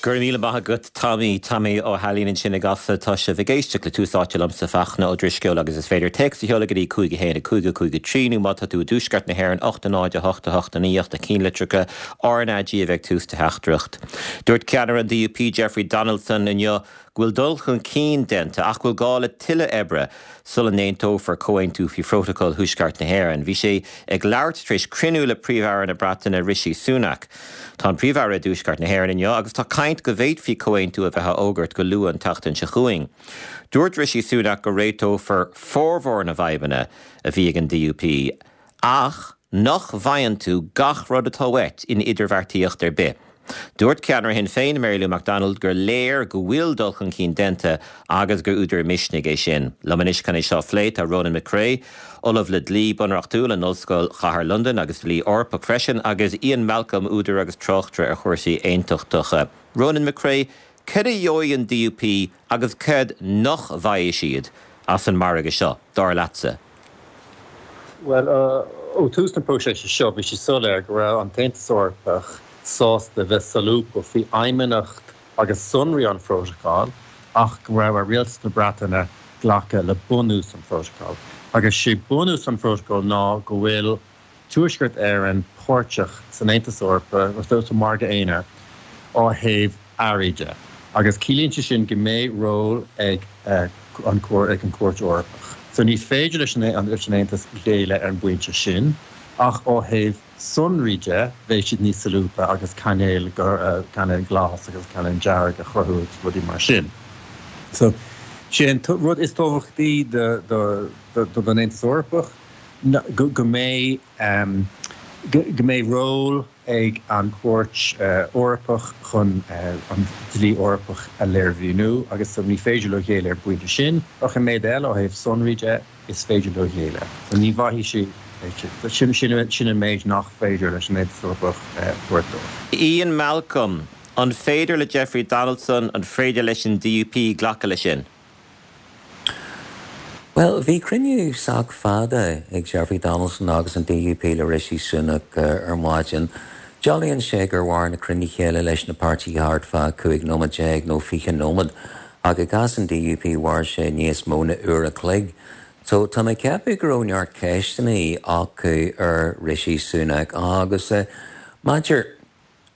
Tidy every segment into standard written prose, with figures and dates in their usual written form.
Go raibh míle maith agat Tommy, Tommy Ó hAilín ansin i gCasla. Tá sibh ag éisteacht le Tús Áite liomsa, Fachtna Ó Drisceoil agus is féidir téacs a sheoladh go dtí 5 1 5 5 3 nó má tá tú i dTuaisceart na hÉireann 8 0 8 8 9 8 na cinnlitreacha RnaG a bheith ag tús do theachtaireacht. Dúirt ceannaire an DUP Jeffrey Donaldson inniu go bhfuil dul chun cinn déanta ach go bhfuil gá le tuilleadh oibre sula n-aontófar comhaontú faoi Phrótacal Thuaisceart na hÉireann. Bhí sé ag labhairt tar éis cruinniú le Príomh-Aire na Breataine Rishi Sunak. Tá an Príomh-Aire i dTuaisceart na hÉireann inniu agus tá caint go bhféadfaí comhaontú a bheith á fhógairt go luath an tseachtain seo chugainn. Dúirt Rishi Sunak go réiteofar formhór na bhfadhbanna a bhí ag an DUP ach nach bhfaigheann tú gach rud atá uait in idirbheartaíocht ar bith. Dúirt ceannaire Shinn Féin, Mary Lou McDonald, gur léir go bhfuil dul chun cinn déanta agus gur údar misnigh é sin. Liom anois chun é seo a phlé tá Ronan McCrea, Ollamh le Dlí Bunreachtúil in Ollscoil Chathair Londain agus Dlí Eorpach freisin, agus Ian Malcolm, údar agus tráchtaire ar chúrsaí aontachtacha. Ronan McCrea, Céard a gheobhaidh an DUP agus céard nach bhfaighidh siad as an margadh seo, dar leatsa? Bhuel, ó thús na próiseas seo, bhí sé soiléir go raibh an tAontas Eorpach sásta bheith solúbtha faoi fheidhmeannacht agus sonraí an phrótacail ach go raibh ar Rialtas na Breataine glacadh le bunús an phrótacail. Agus sé bunús an phrótacail ná go bhfuil Tuaisceart Éireann páirteach san Aontas Eorpach, sa Mhargadh Aonair, ó thaobh earraí de, agus ciallaíonn sé sin go mbeidh ról ag an ag an Chúirt Eorpach. So ní féidir leis an leis an Aontas géilleadh ar an bpointe sin, ach ó thaobh sonraí de, bheidh siad níos solúbtha agus cainéal cainéal glas agus cainéal dearg a chruthú agus rudaí mar sin. So, sé an rud is tábhachtaí do do don Aontas Eorpach, go mbeidh go mbeidh ról ag an Chúirt Eorpach chun an dlí Eorpach a léirmhíniú agus so ní féidir leo géilleadh ar an bpointe sin ach an méid eile ó thaobh sonraí de is féidir leo géilleadh. So ní bhfaighidh siad sin sin an méid nach féidir leis an Aontas Eorpach a thabhairt dóibh. Ian Malcolm, An féidir le Jeffrey Donaldson, an féidir leis an DUP glacadh leis sin? Bhuel, bhí cruinniú sách fada ag Jeffrey Donaldson agus an DUP le Rishi Sunak ar maidin. Dealraíonn sé gur mhair na cruinnithe eile leis na páirtithe thart fá 15 nóiméad nó 20 nóiméad, ach i gcás an DUP mhair sé níos mó na uair a chloig. So tá mé ag ceapadh go raibh neart ceisteanna acu ar Rishi Sunak agus maidir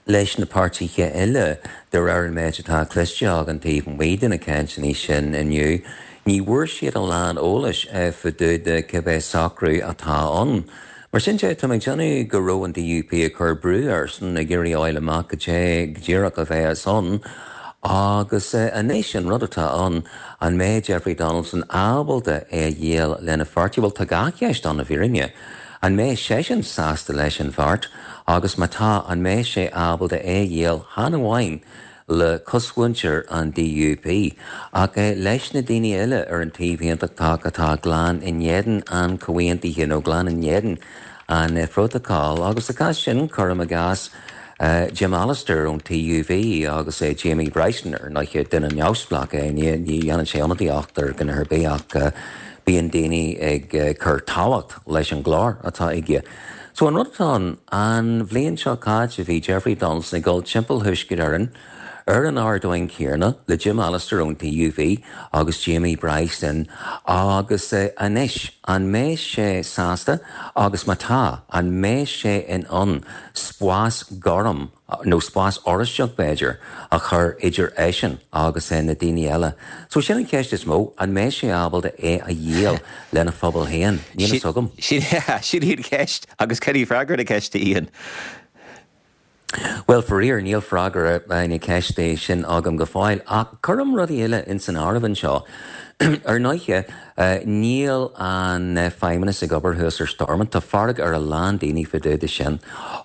leis na páirtithe eile, de réir an méid atá cloiste againn taobh amuigh de na cainteanna sin inniu, ní bhfuair siad a lán eolais fá dtaobh de cibé socrú atá ann. Mar sin de, tá mé ag déanamh go raibh an DUP ag cur brú airsean, ag iarraidh a fháil amach cad é go díreach a bheas ann. Agus anois, an rud atá ann, an mbeidh Jeffrey Donaldson ábalta é a dhíol lena pháirtí? Bhuel, tá dhá cheist ann i bhfírinne. An mbeidh seisean sásta leis an bheart agus má tá, an mbeidh sé ábalta é a dhíol chan amháin le cosmhuintir an DUP ach leis na daoine eile ar an taobh aontachtach atá glan in éadan an chomhaontaithe nó glan in éadan an phrótacail agus sa chás sin, cuirim i gcás, Jim Allister ón TUV agus Jamie Bryson, ar ndóighe, duine neamhspleách é, ní dhéanann sé ionadaíocht ar dhuine ar bith ach bíonn daoine ag cur tábhacht leis an nglór atá aige. So an rud atá ann, an bhliain seo caite bhí Jeffrey Donaldson ag dul timpeall Thuaisceart Éireann ar an ardán céanna le Jim Allister ón TUV agus Jamie Bryson agus anois an mbeidh sé sásta agus má tá, an mbeidh sé in ann spás gorm, nó spás oráisteach b'fhéidir, a chur idir eisean agus na daoine eile. So sin an cheist is mó, an mbeidh sé ábalta é a dhíol lena phobal féin? Níl fhios agam. Sin í an cheist agus cad í freagra na ceiste, Ian? Bhuel, faraor, níl freagra na ceiste sin agam go fóill, ach cuirim rudaí eile ins an áireamh anseo. Ar ndóighe, níl an Feidhmeannas ag obair thuas ar Stormont. Tá fearg ar a lán daoine fá dtaobh de sin.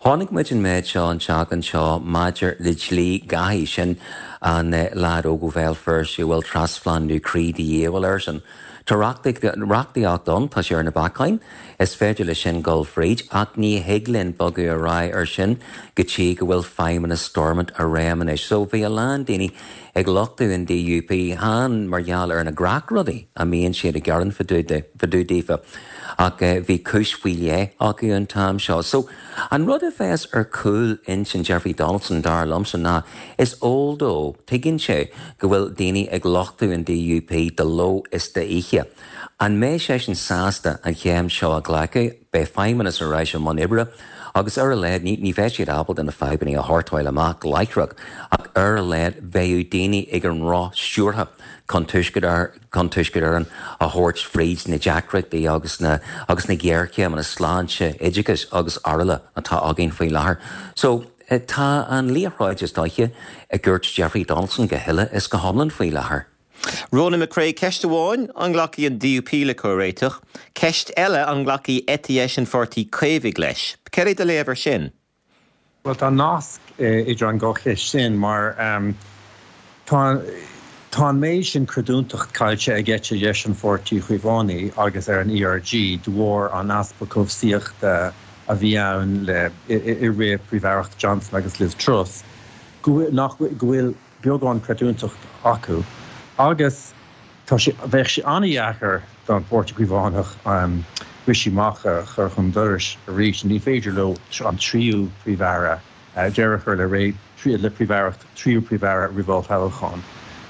Chonaic muid an méid seo an tseachtain seo maidir le dlí Dhaithí, sin an leaid óg ó Bhéal Feirste a bhfuil trasphlandú croí de dhíobháil airsean. Tá reachtaíocht ann, tá sé ar na bacáin, is féidir leis sin dul fríd, ach ní thig linn bogadh ar aghaidh ar sin go dtí go bhfuil feidhmeannas Stormont i réim anois. So bhí a lán daoine ag lochtú an DUP, chan mar gheall ar na gnáthrudaí a mbíonn siad ag gearán fá dtaobh daofa, ach bhí cúis faoi leith acu an t-am seo. So an rud a bheas ar chúl intinn Jeffrey Donaldson, dar liomsa, ná is eol dó, tuigeann sé go bhfuil daoine ag lochtú an DUP de ló is d'oíche. An mbeidh seisean sásta an chéim seo a ghlacadh? Beidh feidhmeannas ar ais i mbun oibre agus ar a laghad ní bheidh siad ábalta na fadhbanna a shórtáil amach láithreach ach ar a laghad beidh daoine ag an roth stiúrtha chun Tuaisceart chun Tuaisceart Éireann a thabhairt fríd na deacrachtaí agus na agus na géarchéimeanna sláinte, oideachais agus araile atá againn faoi láthair. So, tá an liathróid is dóiche i gcúirt Jeffrey Donaldson go huile is go hiomlán faoi láthair. Ronan McCrea, Ceist amháin, an nglacfaidh an DUP le comhréiteach? Ceist eile, an nglacfaidh eite dheis an Pháirtí Caomhaigh leis? Céard é do léamh air sin? Bhuel, tá nasc idir an dhá cheist sin mar tá tá an méid sin creidiúntacht caillte ag eite dheis an Pháirtí Chaomhánaigh agus ar an ERG de bharr an easpa cobhsaíochta a bhí ann le i rith Príomh-Aireacht Johnson agus Liz Truss go bhfuil nach go bhfuil beagán creidiúntacht acu agus Tá sé, bheadh sé an-dheacair don Pháirtí Caomhánach Rishi Sunak a chur chun dorais arís. Ní féidir leo an tríú Príomh-Aire, deireadh a chur le ré, le Príomh-Aireacht tríú Príomh-Aire roimh olltoghchán.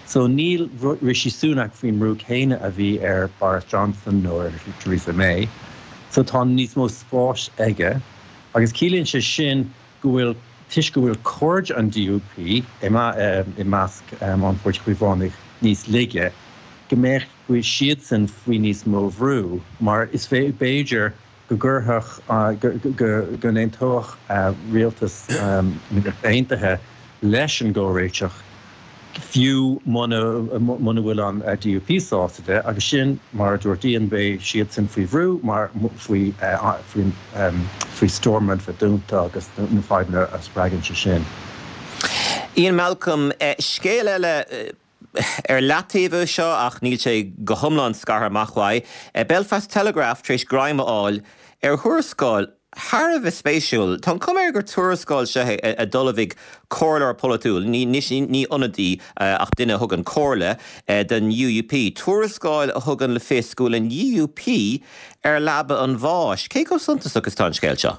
So níl Rishi Sunak faoin mbrú céanna a bhí ar Boris Johnson nó ar Theresa May. So tá níos mó spáis aige agus ciallaíonn sé sin go bhfuil, toisc go bhfuil cairde an DUP i measc an Pháirtí Chaomhánaigh níos laige, go mbeadh siadsan faoi níos mó bhrú mar is b'fhéidir go gcuirfeadh, go n-aontódh rialtas na Ríochta Aontaithe leis an gcomhréiteach. fiú muna bhfuil an DUP sásta de, agus sin, mar a dúirt Ian, beidh siadsan faoi bhrú mar faoi faoi Stormont bheith dúnta agus na fadhbanna a spreagann sé sin. Ian Malcolm, Scéal eile ar leataobh é seo ach níl sé go hiomlán scartha amach uaidh. Belfast Telegraph tar éis greim a fháil ar thuarascáil Thar a bheith spéisiúil. Tá an chuma air gur tuarascáil seo é a d'ullmhaigh comhairleoir polaitiúil, ní ní ionadaí ach duine a thugann comhairle, don UUP. Tuarascáil a thugann le fios go bhfuil an UUP ar leaba an bháis. Cé chomh suntasach is atá an scéal seo?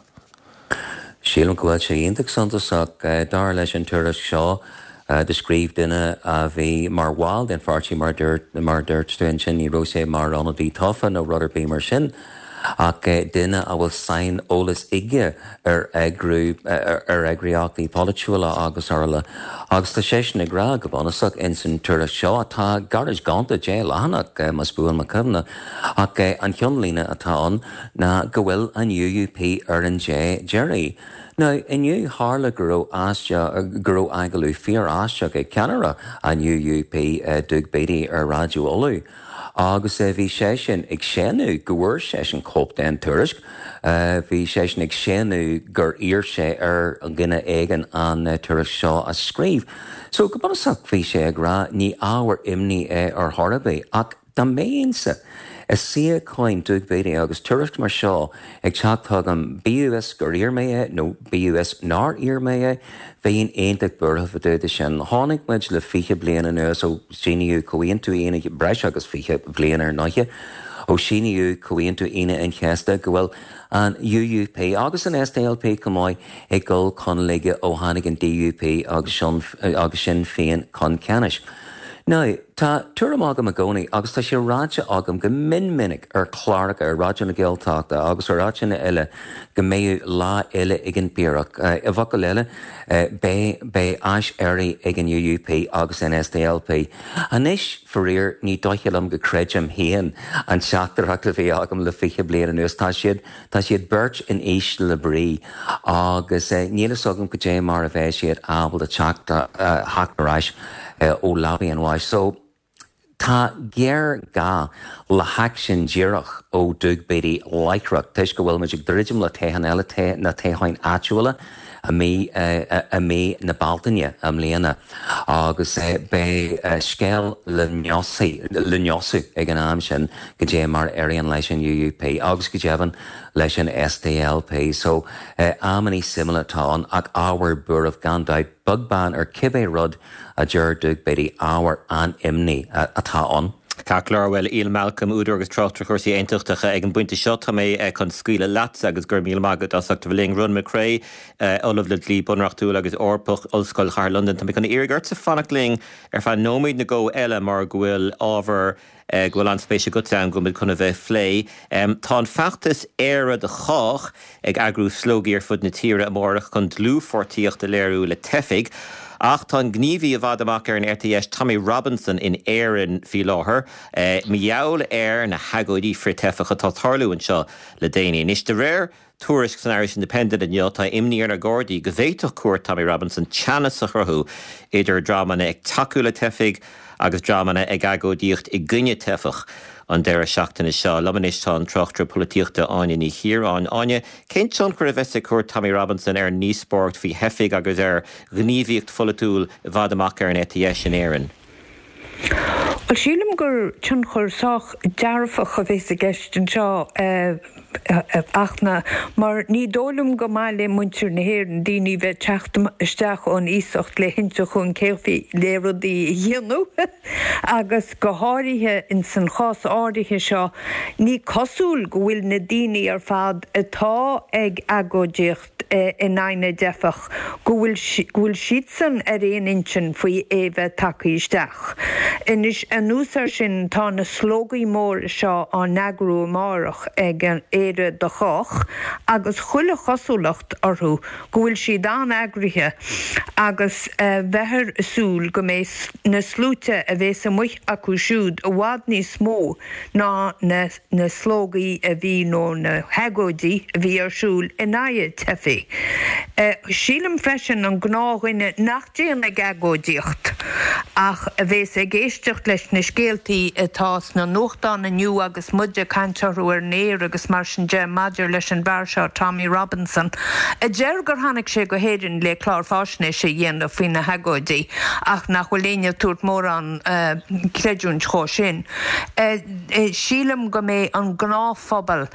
Sílim go bhfuil sé iontach suntasach. Dar leis an tuairisc seo, do scríobh duine a bhí mar bhall den pháirtí, mar dúirt mar dúirt tú ansin, ní raibh sé mar ionadaí tofa nó rud ar bith mar sin, ach duine a bhfuil saineolas aige ar eagrú, ar eagraíochtaí polaitiúla agus araile. Agus tá seisean ag rá, go bunúsach, ins an tuairisc seo, atá gairid gonta, 10 leathanach, más buan mo chuimhne, ach an cheannlíne atá ann ná go bhfuil an UUP ar an dé deiridh. Now, inniu, tharla go raibh aisteach, go raibh agallamh fíor-aisteach ag ceannaire an UUP, Doug Beattie, ar Raidió Uladh. Agus bhí seisean ag séanadh go bhfuair seisean cóip den tuairisc. Bhí seisean ag séanadh gur iarr sé ar dhuine éigin an tuairisc seo a scríobh. So, go bunúsach, bhí sé ag rá, ní ábhar imní é ar chor ar bith. Ach dá mbeinnse i suíochán Doug Beattie agus tuairisc mar seo ag teacht chugam, bíodh is gur iarr mé é nó bíodh is nár iarr mé é, Bheinn iontach buartha fá dtaobh de sin. Chonaic muid le 20 bliain anuas ó síníodh Comhaontú Aoine, breis agus 20 bliain ar ndóighe, ó síníodh Comhaontú Aoine an Chéasta go bhfuil an UUP agus an SDLP chomh maith ag dul chun laige ó tháinig an DUP agus Sinn Féin chun ceannais. Now, tá tuairim agam i gcónaí agus tá sé ráite agam go mion minic ar chláracha ar Raidió na Gaeltachta agus ar áiteanna eile go mbeidh lá eile ag an bPiarach. I bhfocail eile, beidh, beidh aiséirí ag an UUP agus an SDLP. Anois, faraor, ní dóiche liom go creidim féin an teachtaireacht a bhí agam le 20 bliain anuas. Tá siad, tá siad beirt in ísle brí agus níl fhios agam cad é mar a bheidh siad ábalta teacht, theacht ar ais ó leabaidh an bháis. So. Tá géarghá le haicsean díreach ó Doug Beattie láithreach toisc go bhfuil muid ag druidim le toghchán eile, na toghcháin áitiúla i mí i mí na Bealtaine i mbliana agus beidh scéal le le neosú ag an am sin goidé mar a éiríonn leis an UUP agus go deimhin leis an SDLP. So amannaí suimiúla atá ann ach ábhar buairimh gan dabht, beag beann ar cibé rud a deir Doug Beattie, ábhar an-imní atá ann. Ceart go leor, bhuel, Ian Malcolm, údar agus tráchtaire cúrsaí aontachtacha, ag an bpointe seo tá mé chun scaoileadh leatsa agus go raibh míle maith agat as ucht a bheith linn. Ronan McCrea, Ollamh le Dlí Bunreachtúil agus Eorpach, Ollscoil Chathair Londain. Tá mé chun iarraidh ortsa fanacht linn ar feadh nóiméad nó dhó eile mar go bhfuil ábhar go bhfuil an-spéis agatsa ann go bhfuil muid chun a bheith ag plé. Tá an feachtas Éire do Chách ag eagrú slógaí ar fud na tíre amárach chun dlúthpháirtíocht a léiriú le teifigh. Ach tá an gníomhaí i bhfad amach ar an eite dheis Tommy Robinson in Éirinn faoi láthair mar gheall ar na hagóidí frith-teifeach atá ag tarlú anseo le déanaí. Anois, de réir tuairisc san Irish Independent inniu, tá imní ar na Gardaí go bhféadfadh cuairt Tommy Robinson teannas a chruthú idir dreamanna ag tacú le teifigh agus dreamanna ag agóidíocht i gcoinne teifeach an deireadh seachtaine seo. Liom anois tá an tráchtaire polaitíochta Áine Ní Chiaráin. Áine, cén tionchar a bheas ag cuairt Tommy Robinson ar an ndíospóireacht faoi theifigh agus ar ghníomhaíocht pholaitiúil i bhfad amach ar an eite dheis in Éirinn? Bhuel, sílim gur tionchar sách dearfach a bheas i gceist anseo, a Fhachtna, mar ní dóigh liom gur maith le muintir na hÉireann daoine bheith ag teacht isteach ón iasacht le hinse chugainn cén chaoi le rudaí a dhéanamh agus go háirithe ins an chás áirithe seo ní cosúil go bhfuil na daoine ar fad atá ag agóidíocht in aghaidh na dteifeach, go bhfuil, go bhfuil siadsan ar aon intinn faoi é bheith tagtha isteach. Anois, anuas air sin, tá na slógaí móra seo á n-eagrú amárach ag Éire do Chách agus chuile chosúlacht orthu go bhfuil siad an-eagraithe agus bheifear ag súil go mbeidh na sluaite a bhéas amuigh acu siúd i bhfad níos mó ná na na slógaí a bhí nó na hagóidí a bhí ar siúl in aghaidh teifigh. Sílim freisin an gnáthdhuine nach dtéann ag agóidíocht ach a bhéas ag éisteacht leis na scéaltaí atá sna nuachtáin inniu agus muid ag caint orthu ar an aer agus mar sin de maidir leis an bhfear seo Tommy Robinson a deir gur tháinig sé go hÉirinn le clár fáisnéise a dhéanamh faoi na hagóidí ach nach bhfuil éinne ag tabhairt mórán creidiúint dhó sin. Sílim go mbeidh an gnáthphobal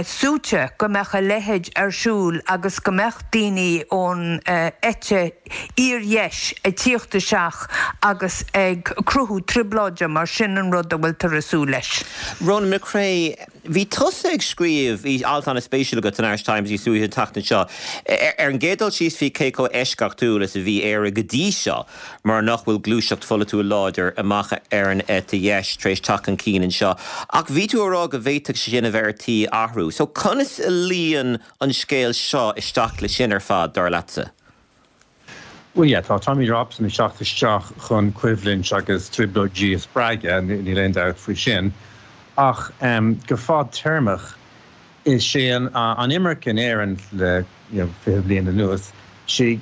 suaite go mbeadh a leithéid ar siúl agus go mbeadh daoine ón eite fhíordheis ag tíocht isteach agus ag cruthú trioblóide mar sin an rud a bhfuiltear ag súil leis. Ronan McCrea, Bhí tusa ag scríobh, bhí alt an-spéisiúil agat san Irish Times níos luaithe an tseachtain seo, ar an gcéad dul síos faoi cé chomh eisceachtúil is a bhí Éire go dtí seo mar nach bhfuil gluaiseacht pholaitiúil láidir amach ar an eite dheis tar éis teacht chun cinn anseo. Ach bhí tú ag rá go bhféadfadh sé sin a bheith ar tí athrú. So conas a luíonn an scéal seo isteach le sin ar fad, dar leatsa? Bhuel, yeah, tá Tommy Robinson ag teacht isteach chun coimhlint agus trioblóidí a spreagadh, níl aon dabht faoi sin. Ach go fadtéarmach, is é an imirce in Éirinn le you know 20 bliain anuas, sé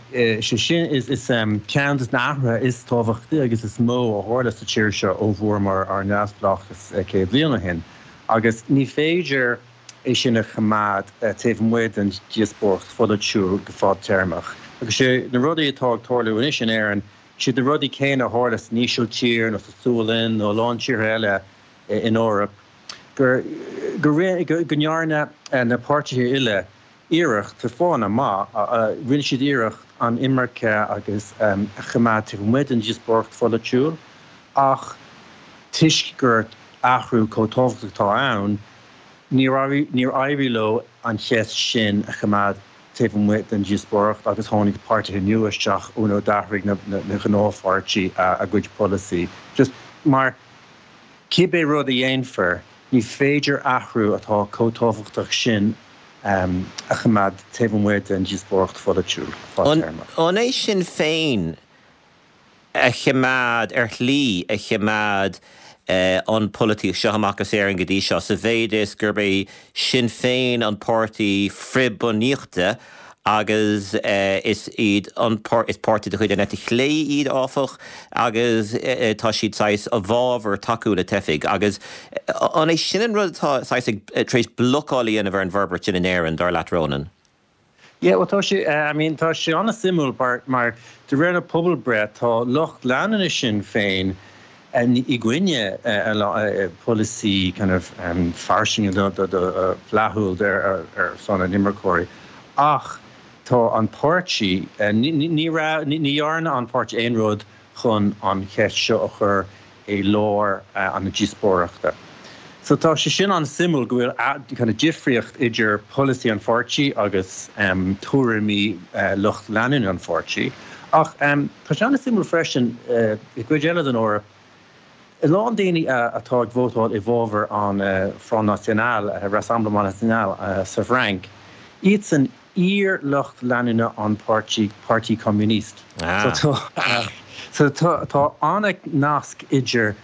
sin is ceann de na hathruithe is tábhachtaí agus is mó a tharla sa tír seo ó bhfuaireamar ár neamhspleáchas 100 bliain ó shin. Agus ní féidir é sin a choimeád taobh amuigh den díospóireacht pholaitiúil go fadtéarmach. Agus sé na rudaí atá ag tarlú anois in Éirinn, siad na rudaí céanna a tharla san Ísiltír nó sa tSualainn nó a lán tíortha eile in Eoraip, gur go ndearna na páirtithe uile iarracht, ar fáthanna maith, rinne siad iarracht an imirce agus a choimeád taobh amuigh den díospóireacht pholaitiúil ach toisc gur athrú chomh tábhachtach atá ann, Níor éirigh leo an cheist sin a choimeád taobh amuigh den díospóireacht agus tháinig páirtithe nua isteach nó d'athraigh na gnáthpháirtí a gcuid polasaí. Just mar, cibé rud a dhéanfar, ní féidir athrú atá chomh tábhachtach sin a choimeád taobh amuigh den díospóireacht pholaitiúil fadtéarmach. An é Sinn Féin a choimeád, ar shlí, a choimeád an pholaitíocht seo amach as Éirinn go dtí seo, sa mhéid is gurb é Sinn Féin an páirtí frith-bhunaíochta. Agus is iad an is páirtí de chuid an eite chlé iad, áfach, agus tá siad saghas i bhfabhar tacú le teifigh. Agus an é sin an rud atá saghas ag tar éis blocáil a dhéanamh ar an bhforbairt sin in Éirinn, dar leat, Ronan? Yeah, bhuel tá sé, I mean tá sé an-suimiúil mar, mar de réir na pobalbreith tá lucht leanúna Sinn Féin i gcoinne polasaí kind of fairsinge flaithiúil ar son na n-imirceoirí ach tá an páirtí, ní raibh, ní dhearna an páirtí aon rud chun an cheist seo a chur i lár na díospóireachta. So tá sé sin an-suimiúil go bhfuil kind of difríocht idir polasaí an pháirtí agus tuairimí lucht leanúna an pháirtí. Ach tá sé an-suimiúil freisin i gcuid eile den Eoraip, a lán daoine atá ag vótáil i bhfabhar an Front National, Rassemblement National sa bhFrainc, iadsan iar-lucht leanúna an páirtí, Parti Communiste. So tá so tá an-nasc idir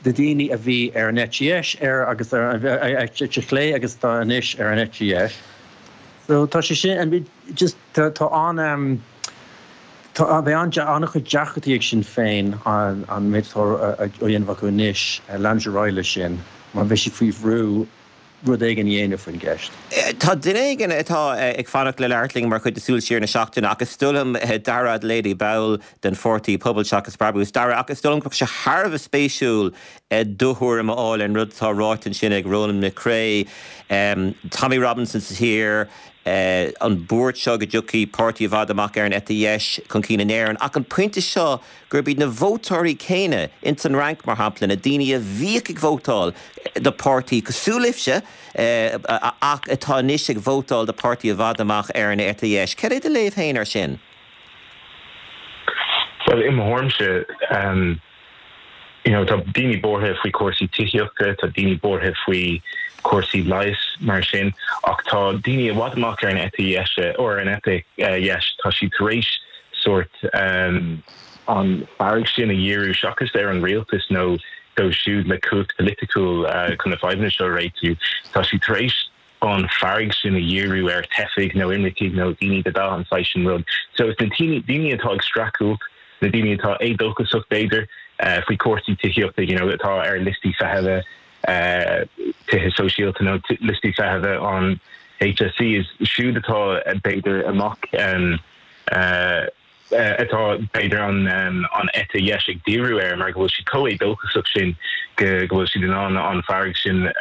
na daoine a bhí ar an eite dheis ar agus ar an eite chlé agus atá anois ar an eite dheis. So tá sé sin, just tá tá an tá beidh an-chuid deacrachtaí ag Sinn Féin an méid atá á dhéanamh acu anois leanúint ar aghaidh leis sin mar beidh siad faoi bhrú rud éigin a dhéanamh faoin gceist. Tá duine éigin atá ag fanacht le labhairt linn mar chuid de Súil Siar na Seachtaine ach is dóigh liom Dara Adelaide, ball den pháirtí Pobal Seachas Brabús. Dara, ach is dóigh liom go mbeadh sé thar a bheith spéisiúil do thuairim a fháil ar an rud atá ráite ansin ag Ronan McCrea, Tommy Robinson sa tír, an buairt seo go dtiocfaidh páirtí i bhfad amach ar an eite dheis chun cinn in Éirinn ach an pointe seo gurb iad na vótóirí céanna, ins an Fhrainc mar shampla, na daoine a bhíodh ag vótáil do pháirtí cosúil libhse ach atá anois ag vótáil do pháirtí i bhfad amach ar an eite dheis. Cad é do léamh féin air sin? Bhuel, i mo thuairimse, you know, tá daoine buartha faoi chúrsaí tithíochta, tá daoine buartha faoi chúrsaí leighis mar sin, ach tá daoine i bhfad amach ar an eite dheise, or ar an eite dheis, tá siad tar éis sórt an fearg sin a dhíriú seachas ar an rialtas nó dóibh siúd le cumhacht pholaitiúil chun na fadhbanna seo a réitiú. Tá siad tar éis an fearg sin a dhíriú ar teifigh nó imircigh nó daoine de dhath, an saghas sin rud. So is na daoine atá ag streachailt, na daoine atá éadóchasach b'fhéidir faoi chúrsaí tithíochta, you know, atá ar liostaí feithimhe tithe sóisialta nó liostaí feithimhe an HSE, is siúd atá b'fhéidir amach atá b'fhéidir an eite dheis ag díriú air mar go bhfuil siad chomh éadóchasach sin go bhfuil siad in ann an fearg sin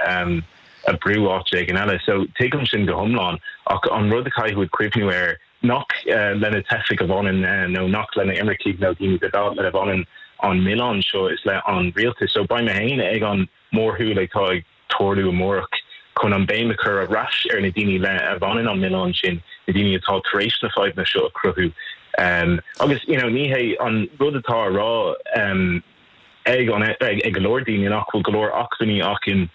a bhrú áit éigin eile. So tuigim sin go hiomlán ach an rud a chaithfidh muid cuimhniú air nach le na teifigh a bhaineann nó nach le na imircigh nó daoine de dhath lena bhaineann an milleán seo is le an rialtas. So beidh mé féin ag an mórshiúl atá ag tarlú amárach chun an béim a chur ar ais ar na daoine le a bhaineann an milleán sin, na daoine atá tar éis na fadhbanna seo a chruthú. Agus you know ní hé an rud atá á rá ag an ag go leor daoine nach bhfuil go leor acmhainní acu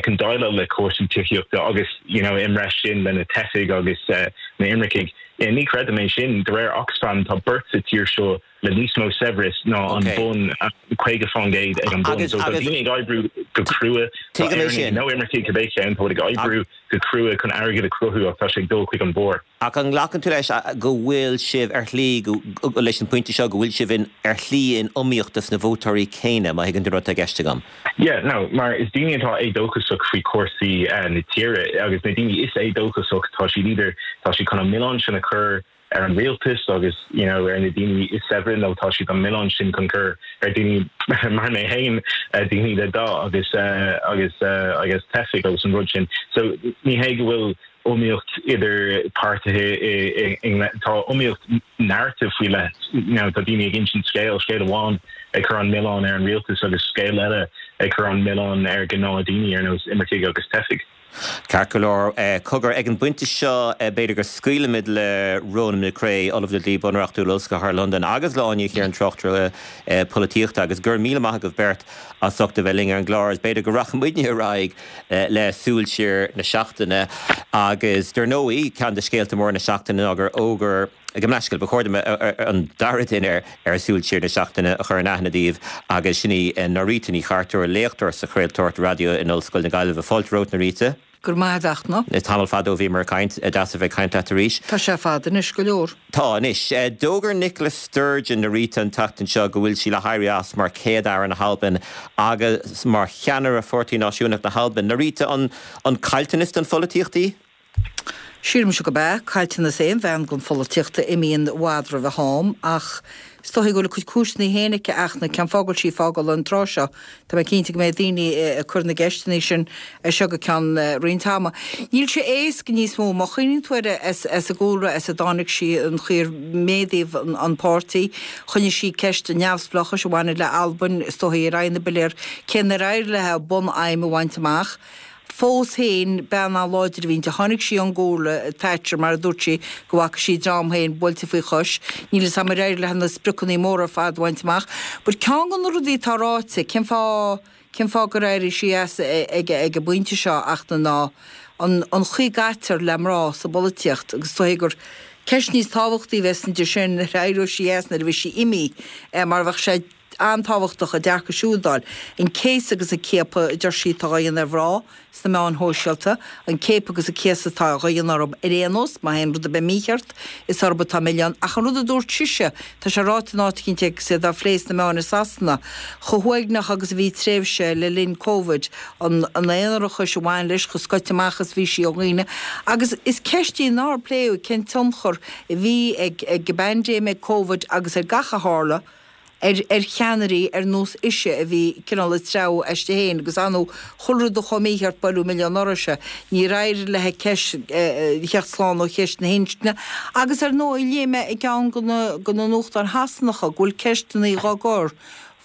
chun déileáil le cúrsaí tithíochta agus you know i mbreis sin le na teifigh agus na imircigh. Ní chreidim é sin. De réir Oxfam tá beirt sa tír seo le níos mó saibhreas ná an bun, 50% ag an bun. So tá daoine ag oibriú go crua, tá Éireannaigh nó imircigh cibé ceann, tá ag oibriú go crua chun airgead a chruthú ach tá sé ag dul chuig an barr. Ach an nglacann tú leis go bhfuil sibh ar shlí, leis an bpointe seo, go bhfuil sibh in, ar shlí in iomaíocht dos na vótóirí céanna, má thuigeann tú an rud atá i gceist agam? Yeah, no, mar is daoine atá éadóchasach faoi chúrsaí na tíre agus na daoine is éadóchasach, tá siad either, tá siad chun an milleán sin a chur ar an rialtas agus you know ar na daoine is saibhre nó tá siad an milleán sin chun cur ar daoine mar mé féin, daoine le dath agus agus agus teifigh agus an rud sin. So ní hé go bhfuil iomaíocht idir páirtithe i i tá iomaíocht narrative faoi leith you know tá daoine ag insint scéal, scéal amháin ag cur an milleán ar an rialtas agus scéal eile ag cur an milleán ar ghnáth-daoine ar nós imircigh agus teifigh. Ceart go leor. Cogar, ag an bpointe seo, b'fhéidir go scaoilfimid le Ronan McCrea, Ollamh le Dlí Bunreachtúil, Ollscoil Chathair Londain, agus le Áine Ní Chiaráin, tráchtaire polaitíochta, agus go raibh míle maith agaibh beirt as ucht a bheith linn ar an gclár. Is b'fhéidir go rachaidh muidne ar aghaidh le Súil Siar na Seachtaine. Agus, dar ndóigh, ceann de scéalta móra na seachtaine ná gur fhógair, Gabh mo leithscéal, ba chóir dom an dara duine ar Súil Siar na Seachtaine a chur in aithne daoibh agus sin í Norita Ní Chartúir, léachtóir sa chraoltóireacht raidió in Ollscoil na Gaillimhe. Fáilte romhat, Norita. Go raibh maith agat, a Fhachtna. Tamall fada ó bhíomar ag caint. Deas a bheith ag caint leat arís. Tá sé fada anois go leor. Tá anois. D'fhógair Nicola Sturgeon, a Rita, an tseachtain seo go bhfuil sí le héirí as mar Chéad-Aire na hAlban agus mar cheannaire Pháirtí Náisiúnach na hAlban. A Rita, an caillteanas don pholaitíocht í? Sílimse gurb ea. Caillteanas aon bhean don pholaitíocht a imíonn i bhfad roimh a ham ach is dóichí go bhfuil a cuid cúiseanna féin aici, a Fhachtna, cén fáth go bhfuil sí ag fágáil an tráth seo. Tá mé cinnte go mbeidh daoine ag cur na gceisteanna sin as seo go ceann roinnt ama. Níl sé éasca níos mó. Má chuimhníonn tú air as an gcúlra as a dtáinig sí, an chaoi ar méadaíodh an páirtí, choinnigh sí ceist an neamhspleáchais a bhaineann le Albain, is dóichí, ar aghaidh na bpiléar, cé nár éirigh léi a bun-aidhm a bhaint amach. Fós féin, bean an-láidir a bhí inti. Tháinig sí ón gcúlra Thatcher, mar a dúirt sí, go bhfaca sí a dream féin buailte faoi chois. Níl 'fhios a'm ar éirigh léi na spriocanna móra ar fad a bhaint amach. But ceann de na rudaí atá ráite, cén fáth, cén fáth gur éirigh sí as ag an bpointe seo ach ná an an chaoi a gcaitear le mná sa bpolaitíocht agus is dóichí gur ceist níos tábhachtaí a bheas inti sin nuair a éireoidh sí as nuair a bheidh sí imithe mar bheadh sé an-tábhachtach a dearcadh siúd a fháil. An céasadh agus an ciapadh a deir sí atá á dhéanamh ar mhná sna meáin shóisialta, an ciapadh agus an céasadh atá á dhéanamh orthu ar aon nós, má théann rud ar bith mícheart, is orthu atá an milleán. Ach an rud a dúirt sise, tá sé ráite in áit eicínt agus iad á phlé sna meáin i Sasana, chomh huaigneach agus a bhí tréimhse le linn Covid, an aonarachais a bhain leis, chomh scoite amach is bhí sí ó dhaoine. Agus is ceist í nár pléadh, cén tionchar a bhí ag an bpaindéim, ag Covid agus ar gach a tharla, ar ar cheannairí ar nós ise a bhí cineál ag treabhadh aisti féin agus ar ndóigh chuile rud a chuaigh mícheart buaileadh milleán uirthise. Níor éirigh léi ceist theacht slán ó cheist na hinscne agus ar ndóigh léigh mé i gceann de na de na nuachtáin Shasanacha go bhfuil ceisteanna dhá gcur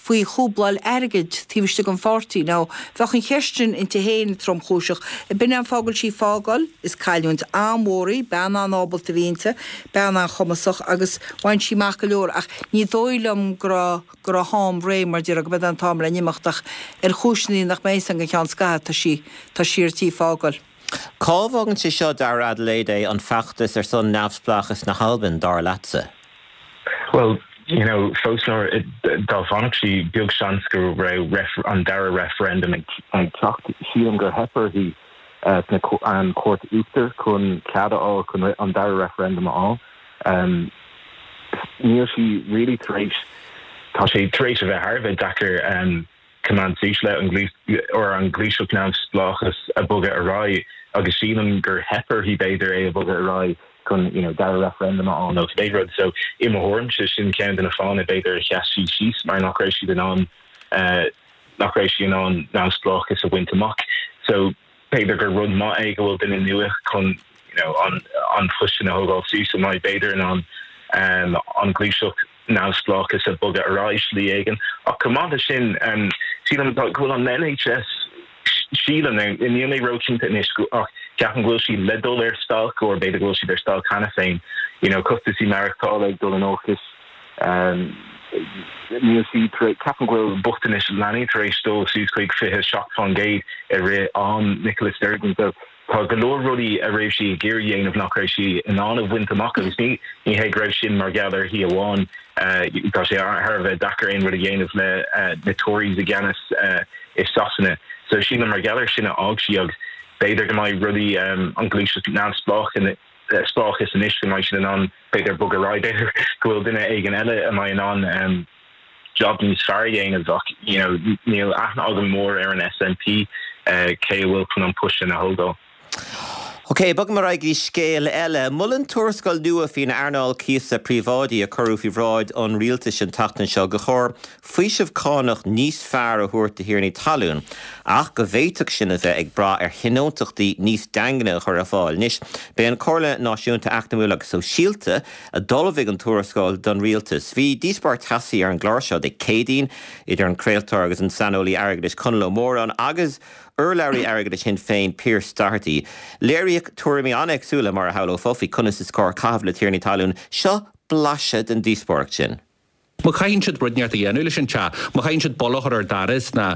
faoi chúbláil airgid taobh istigh den pháirtí. Now bheadh an cheist sin inti féin tromchúiseach. B'in é an fáth go bhfuil sí ag fágáil. Is cailliúint an-mhór í, bean an-ábalta a bhí inti, bean an-chumasach agus bhain sí amach go leor ach ní dóigh liom go raibh, go raibh a ham réidh mar déarfá, go mb'é an t-am le n-imeacht ach ar chúiseanna nach mbeidh a fhios againn go ceann scaithimh tá sí, tá sí ar tí fágáil. Cá bhfágann sé seo, dar Adelaide, é, an feachtas ar son neamhspleáchas na hAlban, dar leatsa? Bhuel, you know, fós nuair, dá bhfanfadh sí, beag seans go raibh an dara referendum ag teacht. Sílim gur theip uirthi sna, an Chúirt Uachtair chun cead a fháil chun an dara referendum a fháil. Níl sí really tar éis, tá sé tar éis a bheith thar a bheith deacair coimeád suas le an or an ghluaiseacht neamhspleáchas a bogadh ar aghaidh agus sílim gur theip uirthi b'fhéidir é a bhogadh ar aghaidh chun you know dara referendum a fháil nó cibé rud. So i mo thuairimse sin ceann de na fáthanna b'fhéidir a sheas sí síos mar nach raibh siad in ann nach raibh sí in ann neamhspleáchas a bhaint amach. So b'fhéidir gur rud maith é go bhfuil duine nua chun you know an an post sin a thógáil suas a mbeidh b'fhéidir in ann an ghluaiseacht neamhspleáchas a bogadh ar aghaidh slí éigin. Ach chomh maith leis sin sílim go bhfuil an NHS sílim, níl mé róchinnte anois ach ceapaim go bhfuil siad le dul ar stailc or b'fhéidir go bhfuil siad ar stailc cheana féin. You know costasaí maireachtála ag dul in olcas. Níl sí tar éis, ceapaim go bhfuil bochtanas leanaí tar éis dul suas chuig 27% i rith am Nicola Sturgeon so tá go leor rudaí a raibh sí ag iarraidh dhéanamh nach raibh sí in ann a bhaint amach agus ní ní hé go raibh sin mar gheall uirthi amháin. Tá sé thar a bheith deacair aon rud a dhéanamh le na Tories i gceannas i Sasana so sílim mar gheall ar sin a fhág sí agus b'fhéidir go mbeidh rudaí an ghluaiseacht neamhspleách spleáchas anois go mbeidh siad in ann b'fhéidir bogadh ar aghaidh, b'fhéidir go bhfuil duine éigin eile a mbeidh in ann job níos fearr a dhéanamh ach you know níl aithne agam mór ar an SNP cé a bhfuil chun an post sin a thógáil. Ok, bogaim ar aghaidh go dtí scéal eile. Molann tuarascáil nua faoin earnáil cíosa príobháidí a cuireadh faoi bhráid an rialtais an tseachtain seo gur chóir faoiseamh cánach níos fearr a thabhairt do thiarnaí talún, ach go bhféadfadh sin a bheith ag brath ar thionóntachtaí níos daingne a chur ar fáil. Anois, b'é an Comhairle Náisiúnta Eacnamúil agus Sóisialta a d'ullmhaigh an tuarascáil don rialtas. Bhí díospóireacht teasaí ar an gclár seo Dé Céadaoin idir an craoltóir agus an saineolaí airgeadais Conall Ó Móráin agus urlabhraí airgeadais Shinn Féin Pearse Doherty. Léiríodh tuairimí an-éagsúla, mar a shamhlófá, faoi conas is cóir caitheamh le tiarnaí talún. Seo blaiseadh den díospóireacht sin. Má chaitheann siad rud inteacht a dhéanamh leis an teach, má chaitheann siad bolla a chur ar doras ná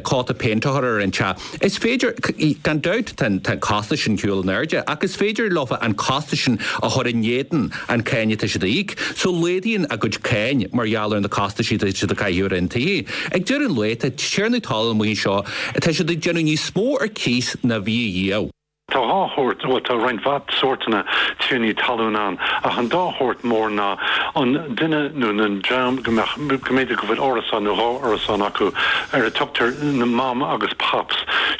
cóta péinte a chur ar an teach, is féidir, gan dabht tá an costas sin ar shiúl in airde, ach is féidir leofa an costas sin a chur in éadan an cáin atá siad a íoc. So laghdaíonn a gcuid cáin mar gheall ar na costaisí atá siad a chaitheamh ar an tithe. Ag deireadh an lae, tá tiarnaí talún amuigh anseo, tá siad ag déanamh níos mó ar cíos ná bhí riamh. Tá dhá shórt, bhuel tá roinnt mhaith sórtanna tiarnaí talún ann, ach an dá shórt mór ná an duine nó na dream go mbeadh, go mb'fhéidir go bhfuil árasán nó dhá árasán acu, ar a tugtar na mam agus pops.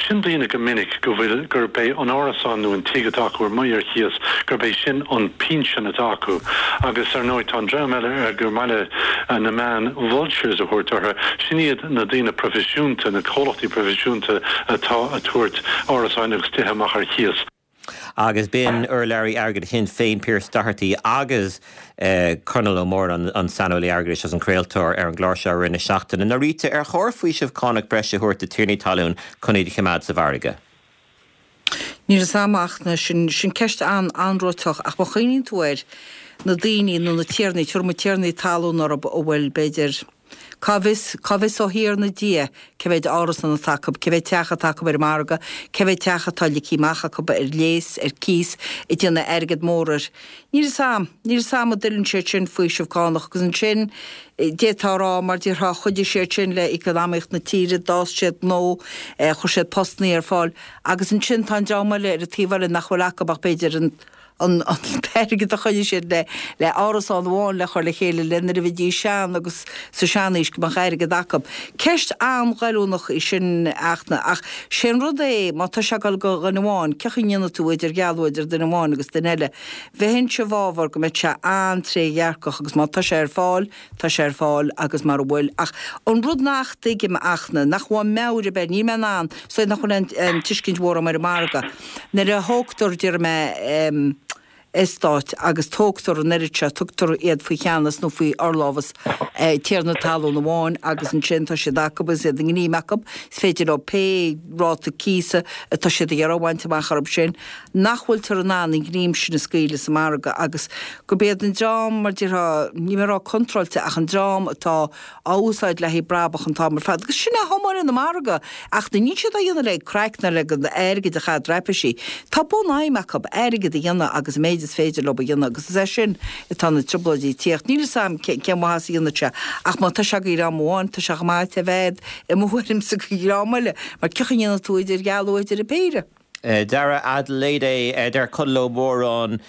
Sin daoine go minic go bhfuil, gurb é an árasán nó an tigh atá acu ar amuigh ar chíos, gurb é sin an pinsean atá acu. Agus ar ndóigh tá an dream eile ar gur maith le na meáin vultures a thabhairt orthu, sin iad na daoine proifisiúnta, na comhlachtaí proifisiúnta atá a tabhairt árasáin agus tithe amach ar chíos. Agus b'in urlabhraí airgeadais Shinn Féin Pearse Doherty agus Conall Ó Móráin, an saineolaí airgeadais agus an craoltóir ar an gclár seo i rith na seachtaine. Norita, ar chóir faoiseamh cánach breise a thabhairt do tiarnaí talún chun iad a choimeád sa mhargadh? Níl a fhios a'm ach sin, sin ceist an-anróiteach ach má chuimhníonn tú air, na daoine nó na tiarnaí, tabharfaidh muid tiarnaí talún orthu a bhfuil, b'fhéidir, Cá bhfios, cá bhfios ó Thiarna Dia cé mhéid árasán atá acu, cé mhéid teach atá acu ar an margadh, cé mhéid teach atá ligthe amach acu ar léas, ar cíos, ag déanamh airgead mór air. Níl fhios a'm, níl fhios a'm an dtuilleann siad sin faoiseamh cánach agus ansin d'fhéadfá a rá mar déarfá chuidigh siad sin le eacnamaíocht na tíre, d'fhás siad gnó, chuir siad postannaí ar fáil agus ansin tá an dream eile ar an taobh eile nach bhfuil acu ach b'fhéidir an an t-airgead a choinnigh siad le le árasán amháin le chur le chéile le nuair a bheidís sean agus sa seanaois go mbeadh airgead acu. Ceist an-ghoilliúnach í sin ach ach sé an rud é má tá sé ag dul go dhuine amháin cén chaoi a ndéanfaidh tú idirdhealú idir duine amháin agus duine eile. Bheinnse i bhfabhar go mbeadh sé an-trédhearcach agus má tá sé ar fáil tá sé ar fáil agus mara bhfuil ach an rud nach dtuigim ach na nach bhfuil meabhair ar bith níl mé in ann is dóigh nach bhfuil aon tuiscint mhór agam ar an margadh. Nuair a thógtar, déarfaidh mé, eastáit agus tógtar an oiread seo, tugtar iad faoi cheannas nó faoi fhorlámhas tiarna talún amháin agus ansin tá siad acu agus iad i ngreim acu, is féidir leo pé ráta cíosa atá siad ag iarraidh a bhaint amach orthu sin, nach bhfuiltear in ann an ghreim sin a scaoileadh sa margadh agus gurb iad an dream, mar déarfá, níl mé ag rá contráilte ach an dream atá á úsáid le haghaidh brabach an t-am ar fad. Agus sin é thiomáin an margadh. Ach níl siad á dhéanamh le craic ná le airgead a chaitheamh traipisí. Tá bunaidhm acu, airgead a dhéanamh agus an méid is féidir leo a dhéanamh agus is as sin atá na trioblóidí ag tíocht. Níl fhios a'm cén mhaitheas a dhéanfaidh sé ach má tá sé go dhream amháin tá sé chomh maith a bheith i mo thuairimse go dhream eile mar cén chaoi a ndéanfaidh tú idirdhealú idir an péire. Dara Adelayde, Deir Conall Ó Móráin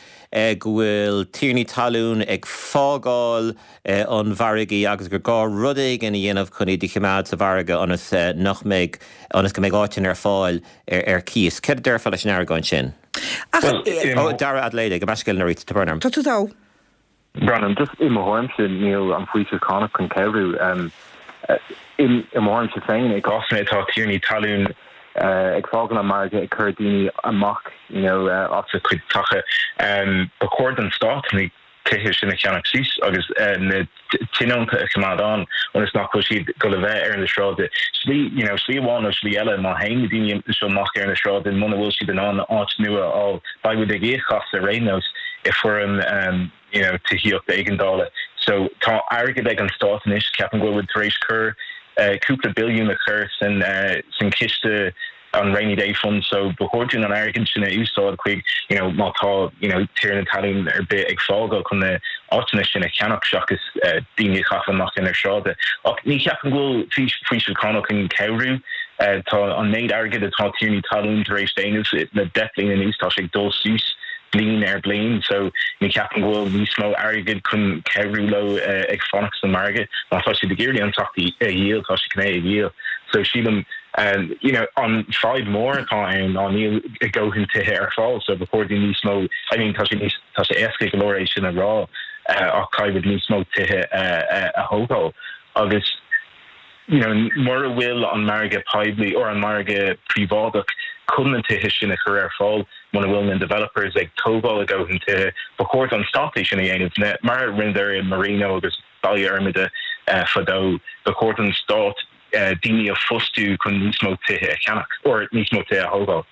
go bhfuil tiarnaí talún ag fágáil an mhargaidh agus gur gá rud éigin a dhéanamh chun iad a choimeád sa mhargadh ionas nach mbeidh, ionas go mbeidh áiteanna ar fáil ar cíos. Céard a déarfá leis an argóint sin? Ó, Dara Adelayde, gabh mo leithscéal Norita, tá brón orm. Tá tú togha. Brendan, just i mo thuairimse níl an faoiseamh cánach chun cabhrú. I mo thuairimse féin, i gcásanna atá tiarnaí talún ag fágáil an margadh, ag cur daoine amach you know as a cuid tithe, ba chóir don stát na tithe sin a cheannach suas agus na tionónta a choimeád ann ionas nach bhfuil siad ag dul a bheith ar na sráide. Slí you know slí amháin nó slí eile má théann na daoine seo amach ar na sráide muna bhfuil siad in ann áit nua a fháil beidh muid ag íoc as ar aon nós i foirm you know tithíocht éigeandála. So tá airgead ag an stát anois, ceapaim go bhfuil muid tar éis cur cúpla billiún a chur san san chiste an rainy day fund so ba chóir dúinn an airgead sin a úsáid chuig you know má tá you know tiarna talún ar bith ag fágáil chun na áiteanna sin a cheannach seachas daoine a chaitheamh amach ar na sráide. Ach ní cheapaim go bhfuil faoiseamh cánach chun cabhrú. Tá an méid airgid atá tiarnaí talún tar éis déanamh le 10 bliain anuas tá sé ag dul suas bliain ar bliain so ní cheapaim go bhfuil níos mó airgid chun cabhrú leo ag fanacht sa margadh. Má tá siad ag iarraidh an teach a dhíol tá siad chun é a dhíol. So sílim you know an fadhb mór atá ann ná níl a dhóthain tithe ar fáil so ba chóir dúinn níos mó I mean tá sé níos tá sé éasca go leor é sin a rá ach caithfidh muid níos mó tithe a thógáil agus you know mura bhfuil an margadh poiblí or an margadh príobháideach chun na tithe sin a chur ar fáil muna bhfuil na developers ag tógáil a dhóthain tithe ba chóir don stát é sin a dhéanamh mar a rinneadar i Marino agus Baile Fhormada fadó ba chóir don stát daoine a phostú chun níos mó tithe a cheannach or níos mó tithe a thógáil,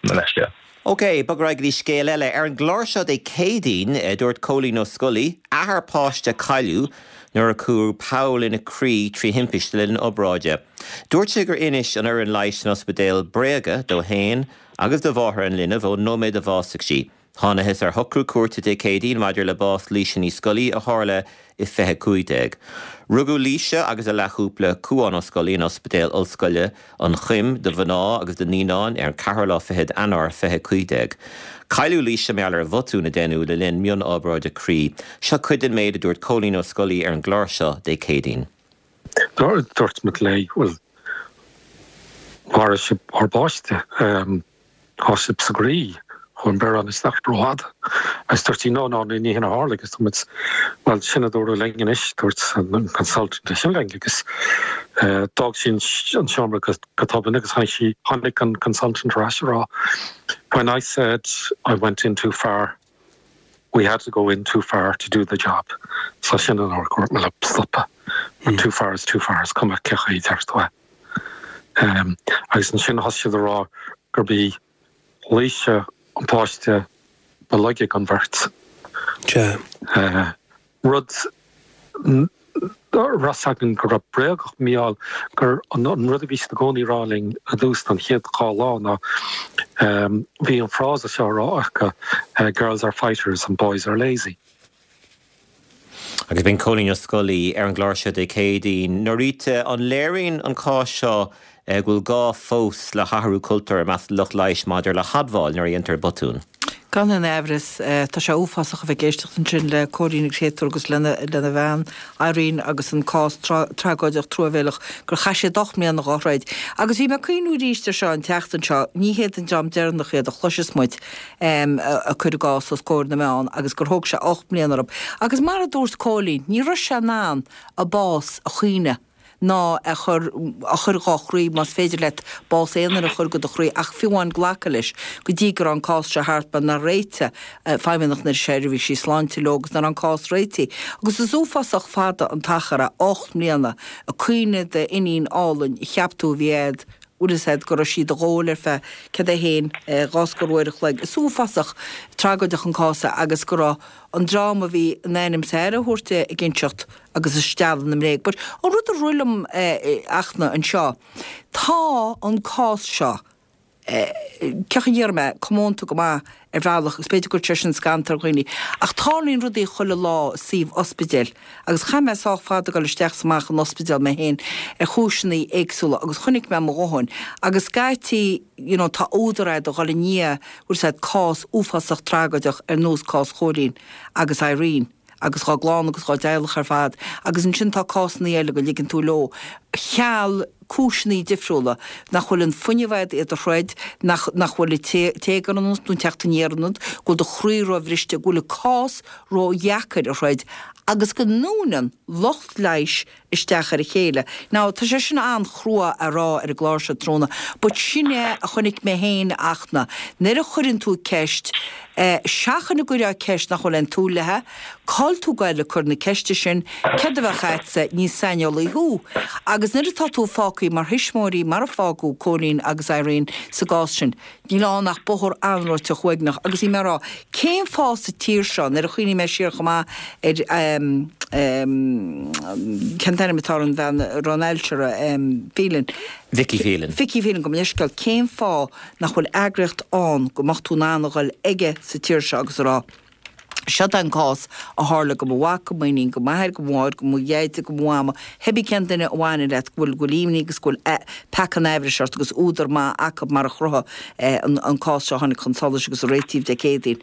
mo leithscéal. OK, bog ar aghaidh go dtí scéal eile. Ar an gclár seo Dé Céadaoin, dúirt Cóilín Ó Scolaí, athair páiste a cailleadh nuair a cuireadh poll ina croí trí thimpiste le linn obráide. Dúirt sé gur inis an fhoireann leighis san ospidéal bréaga dó fhéin agus do mháthair an linbh ón nóiméad a bhásaigh sí. Thánathas ar shocrú cúirte Dé Céadaoin maidir le bás Laoise Ní Scolaí a tharla i 2015. Rugadh Laoise agus a leathchúpla, Cuán Ó Scolaí, in Ospidéal Ollscoile an Choim do mhná agus do naíonáin ar an ceathrú lá fichead Eanáir 2015. Cailleadh Laoise mar gheall ar bhotún a deineadh le linn mionobráide croí. Seo cuid den méid a dúirt Cóilín Ó Scolaí ar an gclár seo Dé Céadaoin. Dúirt muid léi, bhuel, mharaigh sibh ár bpáiste. Tá sibh sa gcroí, chuaigh an biorán isteach rófhada. Agus dúirt sí, no, no, ní hin a tharla agus dúirt muid, bhuel, sin a dúradh linn anois, dúirt an consultant é sin linn agus d'fhág sí an seomra go tobann agus tháinig sí, tháinig an consultant ar ais a rá, when I said I went in too far, we had to go in too far to do the job. So sin an uair gur dúirt mé leo stopadh. Too far is too far, is cuma cé chaoi a deir tú é. Agus ansin thosaigh siad a rá gurb í Laoise an páiste ba laige den bheirt. Rud a raibh 's againn go raibh bréagach mar gheall gur an rud a bhí siad i gcónaí a rá linn i dtús an chéad dhá lá ná bhí an frása seo á rá acu 'girls are fighters and boys are lazy'. Agus b'in Cóilín Ó Scolaí ar an gclár seo Dé Céadaoin. Norita, an léiríonn an cás seo go bhfuil gá fós le hathrú cultúir i measc lucht leighis maidir le hadmháil nuair a dhéantar botún? Gan aon aimhreas. Tá sé uafásach a bheith ag éisteacht ansin le Cóilín an créatúr agus lena bhean, Irene, agus an cás tragóideach truamhéileach gur chaith siad 8 mbliana dhá throid. Agus bhí mé ag cuimhniú arís air seo an tseachtain seo, ní hiad an dream deireanach iad a chloisfeas muid. ag cur a gcás os comhair na meán agus gur thóg sé 8 mbliana orthu. Agus mar a dúirt Cóilín, ní raibh sé in ann a bás a chaoineadh ná a chur a chur dhá chroí, más féidir leat bás aon duine a chur go do chroí, ach fiú amháin glacadh leis go dtí go raibh an cás seo thart mar nár réitigh Feidhmeannacht na Seirbhísí Sláinte leo agus nach raibh an cás réitithe. Agus is uafásach fada an t-achar é, 8 mbliana, ag caoineadh d'iníon álainn a cheap tú a bhí a'd, bhfuil fhios a'd go raibh sí do dhóil ar feadh, céard é fhéin, dhá scór uair a chloig. Is uafásach tragóideach an cás é agus go raibh an dream a bhí in ainm is aire a thabhairt di ag inseacht agus ag stealladh na mbréag. But an rud a rith liom Fhachtna anseo, tá an cás seo, cén chaoi a ndéarfaidh mé, comónta go maith ar bhealach agus b'fhéidir go gcuirfidh sé sin scanntal ar dhaoine, ach tarlaíonn rudaí chuile lá i suíomh ospidéil agus chaith mé sách fada ag dul isteach is amach an ospidéal mé féin ar chúiseanna éagsúla agus chonaic mé mo dhóthain agus scaití you know tá údar a'd a dhul i ndiaidh bhfuil 'fhios a'd cás uafásach tragóideach ar nós cás Chóilín agus Irene. agus dhá gclann agus dhá dteaghlach ar fad, agus ansin tá cásanna eile go ligeann tú leo, cheal cúiseanna difriúla, nach bhfuil an fuinneamh a'd iad a throid, nach nach bhfuil an téagar ionat nó an teacht aniar ionat, go bhfuil do chroí róbhriste, go bhfuil an cás ródheacair a throid, agus go ndúnann lucht leighis isteach ar a chéile. Now, tá sé sin an-chrua a rá ar an gclár seo tráthnóna, but sin é a chonaic mé féin, a Fhachtna. Nuair a chuireann tú ceist, eh, seachain go gcuirfeá ceist nach bhfuil aon tsúil léi, cá'il tú ag goil ag cur na ceiste sin, céard a bheadh a'dsa, ní saineolaí thú. Agus nuair atá tú fágthaí mar thuismitheoirí, mar a fágadh Cóilín agus Irene sa gcás sin, Níl ann ach bóthar anróiteach uaigneach agus bhí mé ag rá, cén fáth sa tír seo, nuair a chuimhnigh mé siar chomh maith ar cén t-ainm atá ar an bhean a raibh an ailse uirthi, Phelan. Vicky Phelan. Vicky Phelan, gabh mo leithscéal, cén fáth nach bhfuil eagraíocht ann go mbeadh tú in ann a dhul aige sa tír seo agus a rá, Seod é an cás a tharla go mo mhac, go m'iníon, go m'athair, go mo mháthair, go mo dheaide, go mo mhama, cibé cén duine a bhaineann leat, go bhfuil, go bhfuil imní agus go bhfuil peaca an aimhris ort agus údar maith acu mar a chruthaigh an cás seo a tháinig chun solais agus a réitíodh Dé Céadaoin.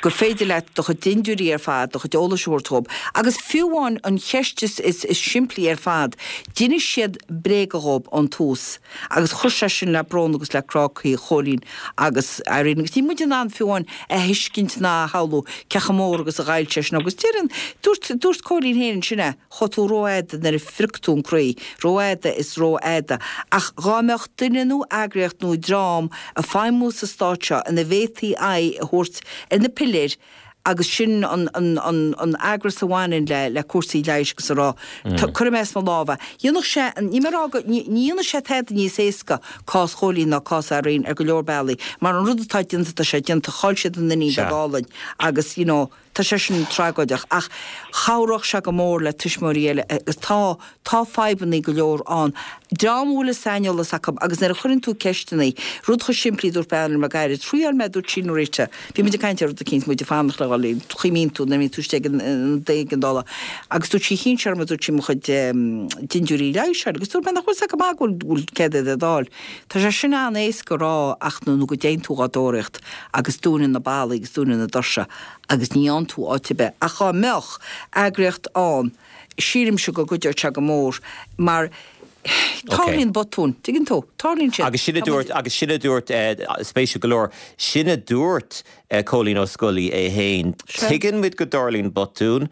Gur féidir leat do chuid dindiúirí ar fad, do chuid eolais a thabhairt dhób. Agus fiú amháin an cheist is, is, is simplí ar fad, d'inis siad bréaga dhób ón tús. Agus chuir sé sin le brón agus le crá croí Chóilín agus Irene. Agus níl muid in ann fiú amháin a thuiscint ná a shamhlú cé chomh mór agus a ghoill sé sin agus deireann, dúirt, dúirt Cóilín féin ansin é, chuaigh tú rófhada nuair a phrioc tú an croí, rófhada is rófhada. Ach dhá mbeadh duine nó eagraíocht nó dream ag feidhmiú sa stát seo ina bhféadfaí aghaidh a thabhairt ar na piléir agus sin an an eagras a bhaineann le le cúrsaí leighis agus a rá cuirfidh mé as mo lámh é. Dhéanfadh sé, níl mé ag rá go, ní dhéanfadh sé tada níos éasca cás Chóilín ná cás Irene ar go leor bealaí mar an rud atá déanta tá sé déanta, chaill siad an iníon bheag álainn agus you know. Tá sé sin tragóideach ach chabhródh sé go mór le tuismitheoirí eile agus tá, tá fadhbannaí go leor ann. Dream a bhfuil an saineolas acu agus nuair a chuireann tú ceisteannaí, rud chomh simplí dúirt bean liom le gairid, thriáil mé dúirt sí Norita, bhí muid ag caint ar rud eicínt, muid ag fanacht le dhul, cuimhníonn tú nuair a bhíonn tú istigh ag an éigeandála agus dúirt sí chinn sé orm dúirt sí mo chuid dintiúirí leighis a fháil agus dúirt mé nach bhfuil 's agat go maith go bhfuil céad iad a fháil. Tá sé sin an-éasca a rá ach nó go dtéann tú dhá dtóraíocht agus dúnann na ballaí agus dúnann na doirse agus ní fhaigheann tú áit ar bith. Ach dhá mbeadh eagraíocht ann, sílimse go gcuideodh sé go mór mar tarlaíonn botúin, tuigeann tú? Tarlaíonn siad. Agus sin a dúirt, agus sin a dúirt, spéisiúil go leor, sin a dúirt Cóilín Ó Scolaí é féin. Tuigeann muid go dtarlaíonn botúin,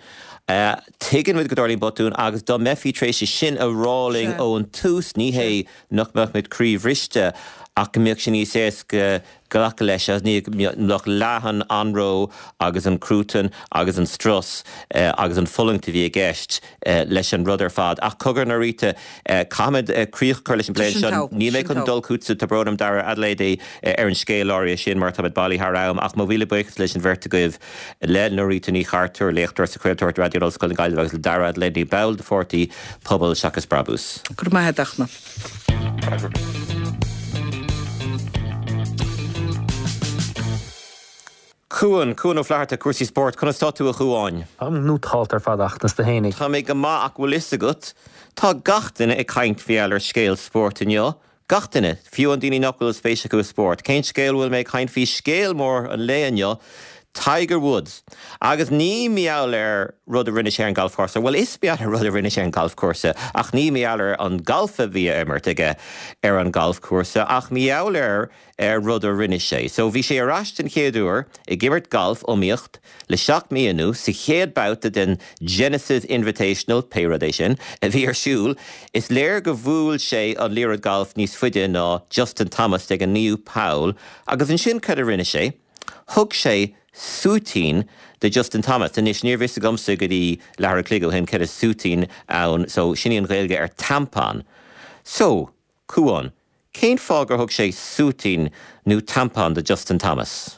tuigeann muid go dtarlaíonn botúin agus dá mbeifí tar éis é sin a rá linn ón tús, ní hé nach mbeadh muid croíbhriste ach go mbeadh sé níos éasca glacadh leis agus ní mbeadh leath an anró agus an cruatan agus an strus agus an fulaingt a bhí i gceist leis an rud ar fad. Ach cogar, Norita, caithfimid críoch a chur leis an bplé anseo. Níl mé chun dul chugatsa, tá brón orm Dara Adelaide ar an scéal áirithe sin mar táimid bailithe thar am ach mo mhíle buíochas leis an bheirt agaibh, le Norita Ní Chartúir, léachtóir sa chraoltóireacht Raidió in Ollscoil na Gaillimhe agus le Dara Adelaide, ball de pháirtí Pobal Seachas Brabús. Go raibh maith agat, a Fhachtna. Cuan, Cuan Ó Flatharta, cúrsaí spóirt, conas tá tú a Chuáin? Táim nótálta ar fad a Fhachtna, is tú fhéinig? Tá mé go maith ach bhfuil fhios agat, tá gach duine ag caint mar gheall ar scéal spóirt inniu, Gach duine, fiú an daoine nach bhfuil spéis acu i spórt. Cén scéal a bhfuil mé ag caint faoi? Scéal mór an lae inniu, Tiger Woods. Agus ní mar gheall ar rud a rinne sé ar an galfchúrsa, bhuel is mar gheall ar rud a rinne sé ar an galfchúrsa, ach ní mar gheall ar an galf a bhí á imirt aige ar an galfchúrsa, ach mar gheall ar ar rud a rinne sé. So bhí sé ar ais den chéad uair ag imirt galf, iomaíocht, Le seacht mí anuas, sa chéad babhta den Genesis Invitational, pé rud é sin, a bhí ar siúl, is léir go bhuail sé an liathróid gailf níos faide ná Justin Thomas ag an naoú poll agus ansin cad a rinne sé? Thug sé súitín do Justin Thomas. Anois, níorbh fhios agamsa go dtí leathuair a chloig ó shin cad is súitín ann, so sin í an Ghaeilge ar tampon. So, Cuán, cén fáth gur thug sé súitín nó tampon do Justin Thomas?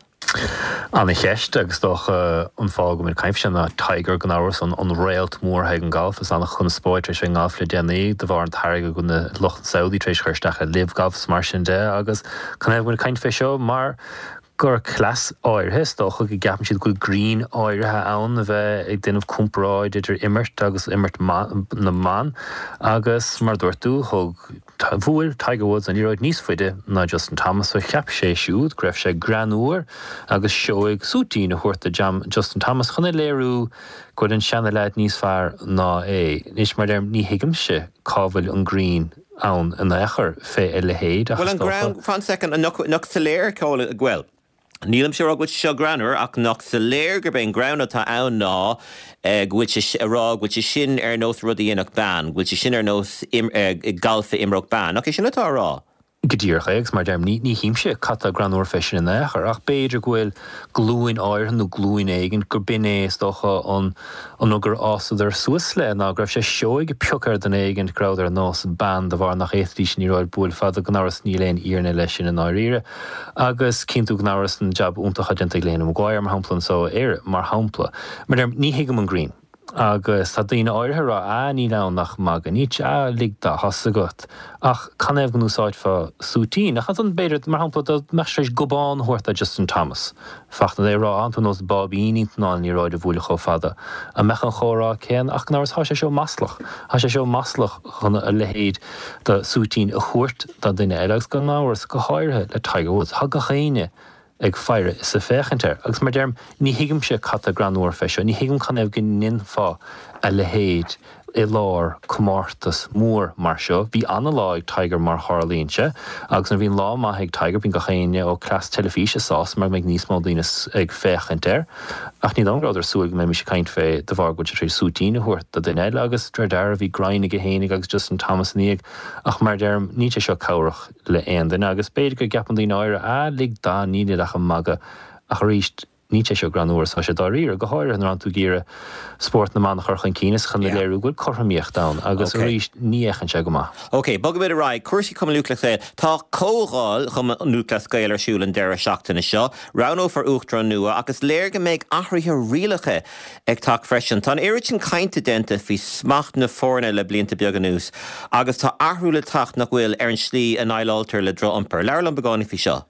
Ana-cheist, agus is dócha an fáth go bhfuil muid ag caint faoi seo ná Tiger, gan amhras, an réalt mór ag an galf. Is an-chonspóid tar éis bheith i ngalf le déanaí de bharr an t-airgead go bhfuil na lucht Saudi tar éis chur isteach i LIV Golf is mar sin de agus canathaobh go bhfuil muid ag caint fé seo mar gur cleas áirithe, is dócha go gceapann siad go bhfuil greann áirithe ann a bheith ag déanamh comparáid idir imirt agus imirt na mban agus mar a dúirt tú, thug, bhuail Tiger Woods an liathróid níos faide ná Justin Thomas so cheap sé siúd go raibh sé greannmhar agus seoigh súitín a thabhairt do Justin Thomas chun a léiriú go bhfuil an seana-leaid níos fearr ná é. Anois, mar a deirim, ní thuigimse cá bhfuil an greann. ann in aon chor fé a leithéid ach is Bhuel an dócha. greann, fan soicind, nach, nach soiléir, bhuel, nílimse ag rá go bhfuil sé seo greannmhar ach nach soiléir gurb é an greann atá ann ná go bhfuil sé ag rá go bhfuil sé sin ar nós rud a dhéanfadh bean, go bhfuil sé sin ar nós galf a imreodh bean. Nach é sin atá á rá? Go díreach é, agus mar a deirim, ní, ní thuigimse cad tá greannmhar fé sin in aon chor, ach b'fhéidir go bhfuil glúin áirithe nó glúin éigin gur b'in é, is dócha, an, an rud gur fhásadar suas le, ná go raibh sé seoigh pioc ar dhuine éigin go rabhadar ar nós bean de bharr nach bhféadfaidís an liathróid bualadh fada, gan amhras níl aon fhírinne leis sin i ndáiríre. Agus cíonn tú gan amhras an jab iontach atá déanta ag Lena Maguire, mar shampla, anso i Éire, mar shampla. Mar a deirim, ní thuigim an greann. Agus tá daoine áirithe ag rá, ah, níl ann ach magadh níos, ah, lig dá, tá's agat. Ach canathaobh go n-úsáidfeá súitín? Ach ansan, b'fhéidir, mar shampla, dá mbeadh sé tar éis gobán a thabhairt do Justin Thomas, Fachtna, é a rá, ah, tú nós báibín níl tú in ann an liathróid a bhualadh chomh fada. An mbeadh an chomhrá céanna? Ach gan amhras, tá sé seo maslach. Tá sé seo maslach chun a leithéid de súitín a thabhairt do dhuine eile agus gan amhras, go háirithe le Tiger Woods. Tá gach éinne ag faire is ag féachaint air. Agus mar a deirim, ní thuigimse cad tá greannmhar fé seo, ní thuigim canathaobh go ndéanfá a leithéid i lár comórtas mór mar seo. Bhí ana-lá ag Tiger mar tharlaíonn sé, agus nuair a bhíonn lá maith ag Tiger bíonn gach éinne ó cleas teilifíse sásta mar go mbeidh níos mó daoine ag féachaint air. Ach ní dóigh liom go rabhadar ag súil go mbeimis ag caint fé de bharr go bhfuil sé tar éis súitín a thabhairt do dhuine eile agus de réir dealraimh bhí greann aige fhéinig agus Justin Thomas ina dhiaidh. Ach mar a deirim, níl sé seo cabhrach. le aon duine agus b'fhéidir go gceapann daoine áirithe, ah, lig dó, níl ach ag magadh. Ach arís, Níl sé seo greannmhar is tá sé dáiríre, go háirithe nuair atánn tú ag iarraidh spórt na mban a chur chun cinn is chun a léiriú go bhfuil cothromaíocht ann agus arís ní fhéachann sé go maith. Ok, bogfaimid ar aghaidh. Cúrsaí Chumann Lúthchleas Gael. Tá Comhdháil Chumann Lúthchleas Gael ar siúl an deireadh seachtaine seo. Roghnófar Uachtarán nua ach is léir go mbeidh athruithe rialacha ag teacht freisin. Tá an oiread sin cainte déanta faoi smacht na foirne le blianta beaga anuas agus tá athrú le teacht, nach bhfuil, ar an slí a ndéileáiltear le droch-iompar. Labhair liom beagáinín faoi seo.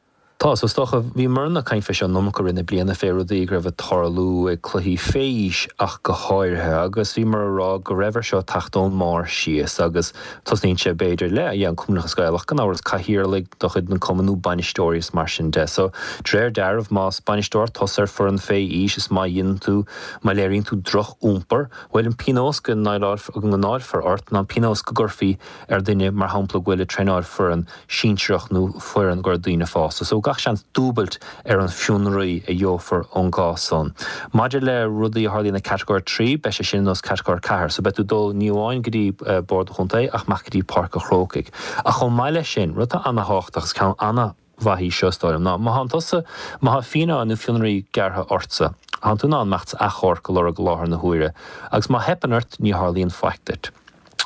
Tá, so is dócha, bhíomarna ag caint fé seo an iomarca i rith na bliana, fé rudaí go raibh ag tarlú ag cluichí fé aois ach go háirithe, agus bhíomar a rá go raibh ar seo teacht ón mbarr síos agus tosnaíonn sé b'fhéidir le, yeah, an Cumann Lúthchleas Gael ach gan amhras cathaoirligh de chuid na cumann nó bainisteoirí is mar sin de. So, de réir dealraimh, más bainisteoir tusa ar foireann fé aois is má dhéanann tú, má léiríonn tú droch-iompar, bhuel an pionós go ndáilfear ort ná an pionós go gcuirfí ar duine, mar shampla, go bhfuil ag traenáil foireann sinsearach nó foireann gur daoine fásta. So gach seans dúbailt ar an fionraí a gheofar ón gcás san. Maidir le rudaí a tharlaíonn ag Catagóir 3, beidh sé sin ar nós Catagóir 4. So beidh tú ag dul ní amháin go dtí Bord an Chontae ach amach go dtí Páirc an Chrócaigh. Ach chomh maith leis sin, rud atá ana-thábhachtach agus ceann ana-mhaith í seo is dóigh liom ná má thánn tusa, má thá fíneáil nó fionraí gearrtha ortsa, thánn tú in ann imeacht 's achomharc a lorg i láthair na huaire agus má theipeann ort ní tharlaíonn faic duit.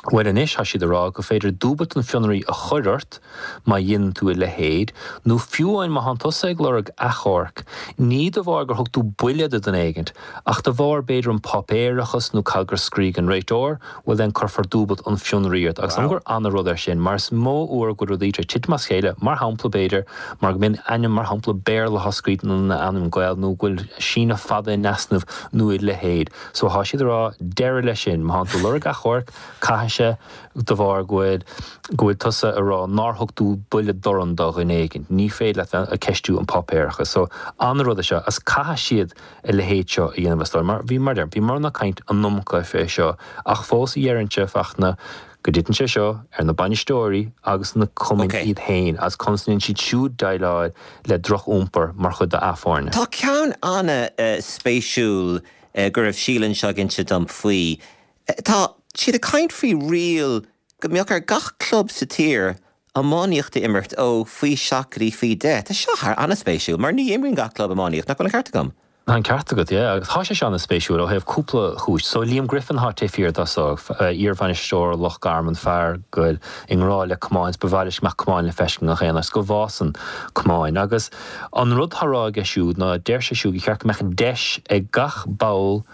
Bhuel anois, tá siad ag rá gur féidir dúbailt an fionraí a chur ort má dhéanann tú a leithéid, nó fiú amháin má thánn tusa ag lorg achomhairc, ní de bharr gur thug tú buille do dhuine éigint, ach de bharr b'fhéidir an páipéarachas nó cad gur scrígh an réiteoir, bhuel then cuirfear dúbailt an fionraí ort. Agus an gur ana-rud é sin, mar is mó uair go bhfuil rudaí tar éis titim as chéile, mar shampla b'fhéidir, mar go mbíonn ainm mar shampla Béarla á scríobh ina ainm Gael nó go bhfuil síneadh fada in easnamh nó a leithéid. So thá siad ag rá deireadh leis sin, má thánn tú ag lorg achomhairc, caithfidh sé de bharr go bhfuil, go bhfuil tusa ag rá nár thug tú buille dorn do dhuine éigin. Ní féidir leat bheith ag ceistiú an páipéarachas. So an-rud é seo agus caithfidh siad a leithéid seo a dhéanamh is dóigh. Mar bhí, mar deirim, bhíomarna ag caint an iomarca fé seo ach fós dheireinnse, Fachtna, go dtiteann sé seo ar na bainisteoirí agus na cumainn Ok. iad féin agus conas a ndéanann siad siúd déileáil le droch-iompar mar chuid d'a foirne. Tá ceann ana-spéisiúil go raibh Síle anseo ag inse dom faoi. Tá siad ag caint faoi riail go mbeadh ar gach club sa tír iománaíocht a imirt ó faoi 7 go dtí faoi 10. Tá seo thar ana-spéisiúil mar ní imríonn gach club iománaíocht, nach bhfuil an ceart agam? Tá an ceart agat, yeah, agus tá sé seo ana-spéisiúil ó thaobh cúpla chúis. So Liam Griffin atá taobh thiar de so, iar-bhainisteoir Loch Garman, fear go bhfuil i ngrá le camáin, is ba mhaith leis go mbeadh camáin le feiscint i ngach aon áit, go bhfásann camáin. Agus an rud atá á rá aige siúd ná deir sé siúd gur cheart go mbeadh deis ag gach ball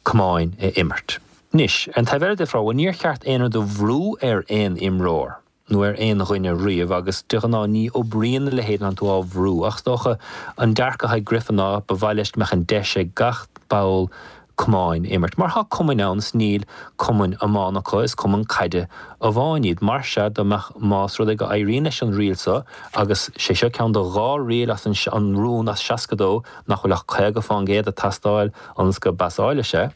camáin a imirt. Anois, ar an taobh eile de, bhuel, níor cheart aon rud a bhrú ar aon imreoir. nó ar aon dhuine riamh agus de ghnáth ní oibríonn a leithéid nuair atánn tú á bhrú ach is dócha an dearcadh atá ag Griffin ná ba mhaith leis go mbeadh an deis ag gach ball camáin imirt mar tá cumainn ann is níl cumainn iomána acu is cumann caide amháin iad mar sea dá mbeadh más rud é go éiríonn leis an riail seo agus sé seo ceann de dhá riail as an an rún as 62 nach bhfuil ach 50 fán gcéad ag teastáil ionas go bpasáilfidh sé.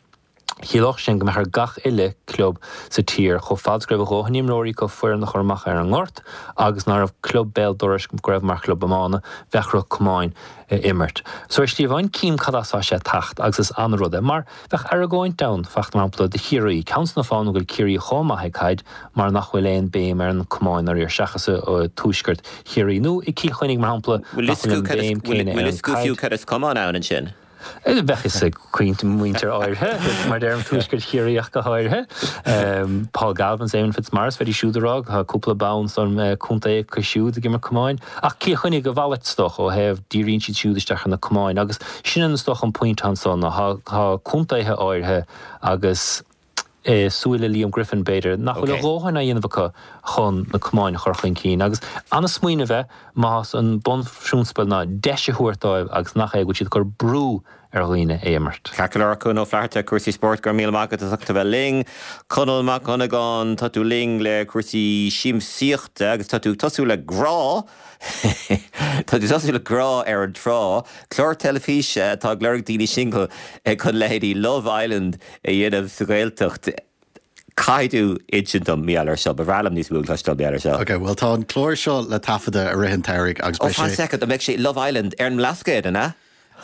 Chiallódh sin go mbeadh ar gach uile club sa tír, chomh fada is go raibh a dhóthain imreoirí acu foireann a chur amach ar an ngort agus ná raibh club béal dorais go raibh mar chlub iomána, bheadh orthu camáin a imirt. So ar shlí amháin cím cad as tá sé ag teacht agus is an-rud é mar bheadh argóint ann, Fachtna, mar shampla, do Chiarraí, ceann de na fáthanna go bhfuil Ciarraí chomh maith ag caid mar nach bhfuil aon béim ar an camáin dáiríre seachas i tuaisceart Chiarraí nó i Cill Chainnigh mar shampla nach bhfuil an béim céanna ar Bhfuil an fhios acu fiú caid. cad is camán ann ansin? Bheadh fhios ag cuid muintir áirithe, mar deirim, Tuaisceart Chiarraí ach go háirithe. Paul Galvin, Eamon Fitzmaurice, bheidís siúd ag rá tá cúpla bonn san contae acu siúd ag imirt camáin. Ach Cill Chainnigh a mhalairt is dócha ó thaobh díríonn siad siúd isteach ar na camáin agus sin an is dócha an pointe anso ná tá contaetha áirithe agus i súile Liam Griffin, b'fhéidir, nach bhfuil a dhóthain á dhéanamh acu chun na camáin a chur chun cinn. Agus an-smaoineamh é, más an bunphrionsabal ná deis a thabhairt dóibh agus nach é go bhfuil siad ag cur brú ar dhaoine é imirt. Ceart go leor, Cuan Ó Flatharta, cúrsaí spóirt, go raibh míle maith agat as ucht a bheith linn. Conall Mac Dhonnagáin, tá tú linn le cúrsaí siamsaíochta agus tá tú ag tosú le Grá. Tá tú ag tosú le Grá ar an Trá, clár teilifíse atá ag lorg daoine singil chun leithéidí Love Island a dhéanamh sa Ghaeltacht. Caithfidh tú insint dom mar gheall air seo. Ba bhreá liom níos mó a chloisteáil mar gheall air seo. Ok, bhuel tá an clár seo le taifeadadh i rith an tsamhraidh agus Oh, beidh fan sé. soicind, an mbeidh sé Love Island ar an mBlascaod, an ea?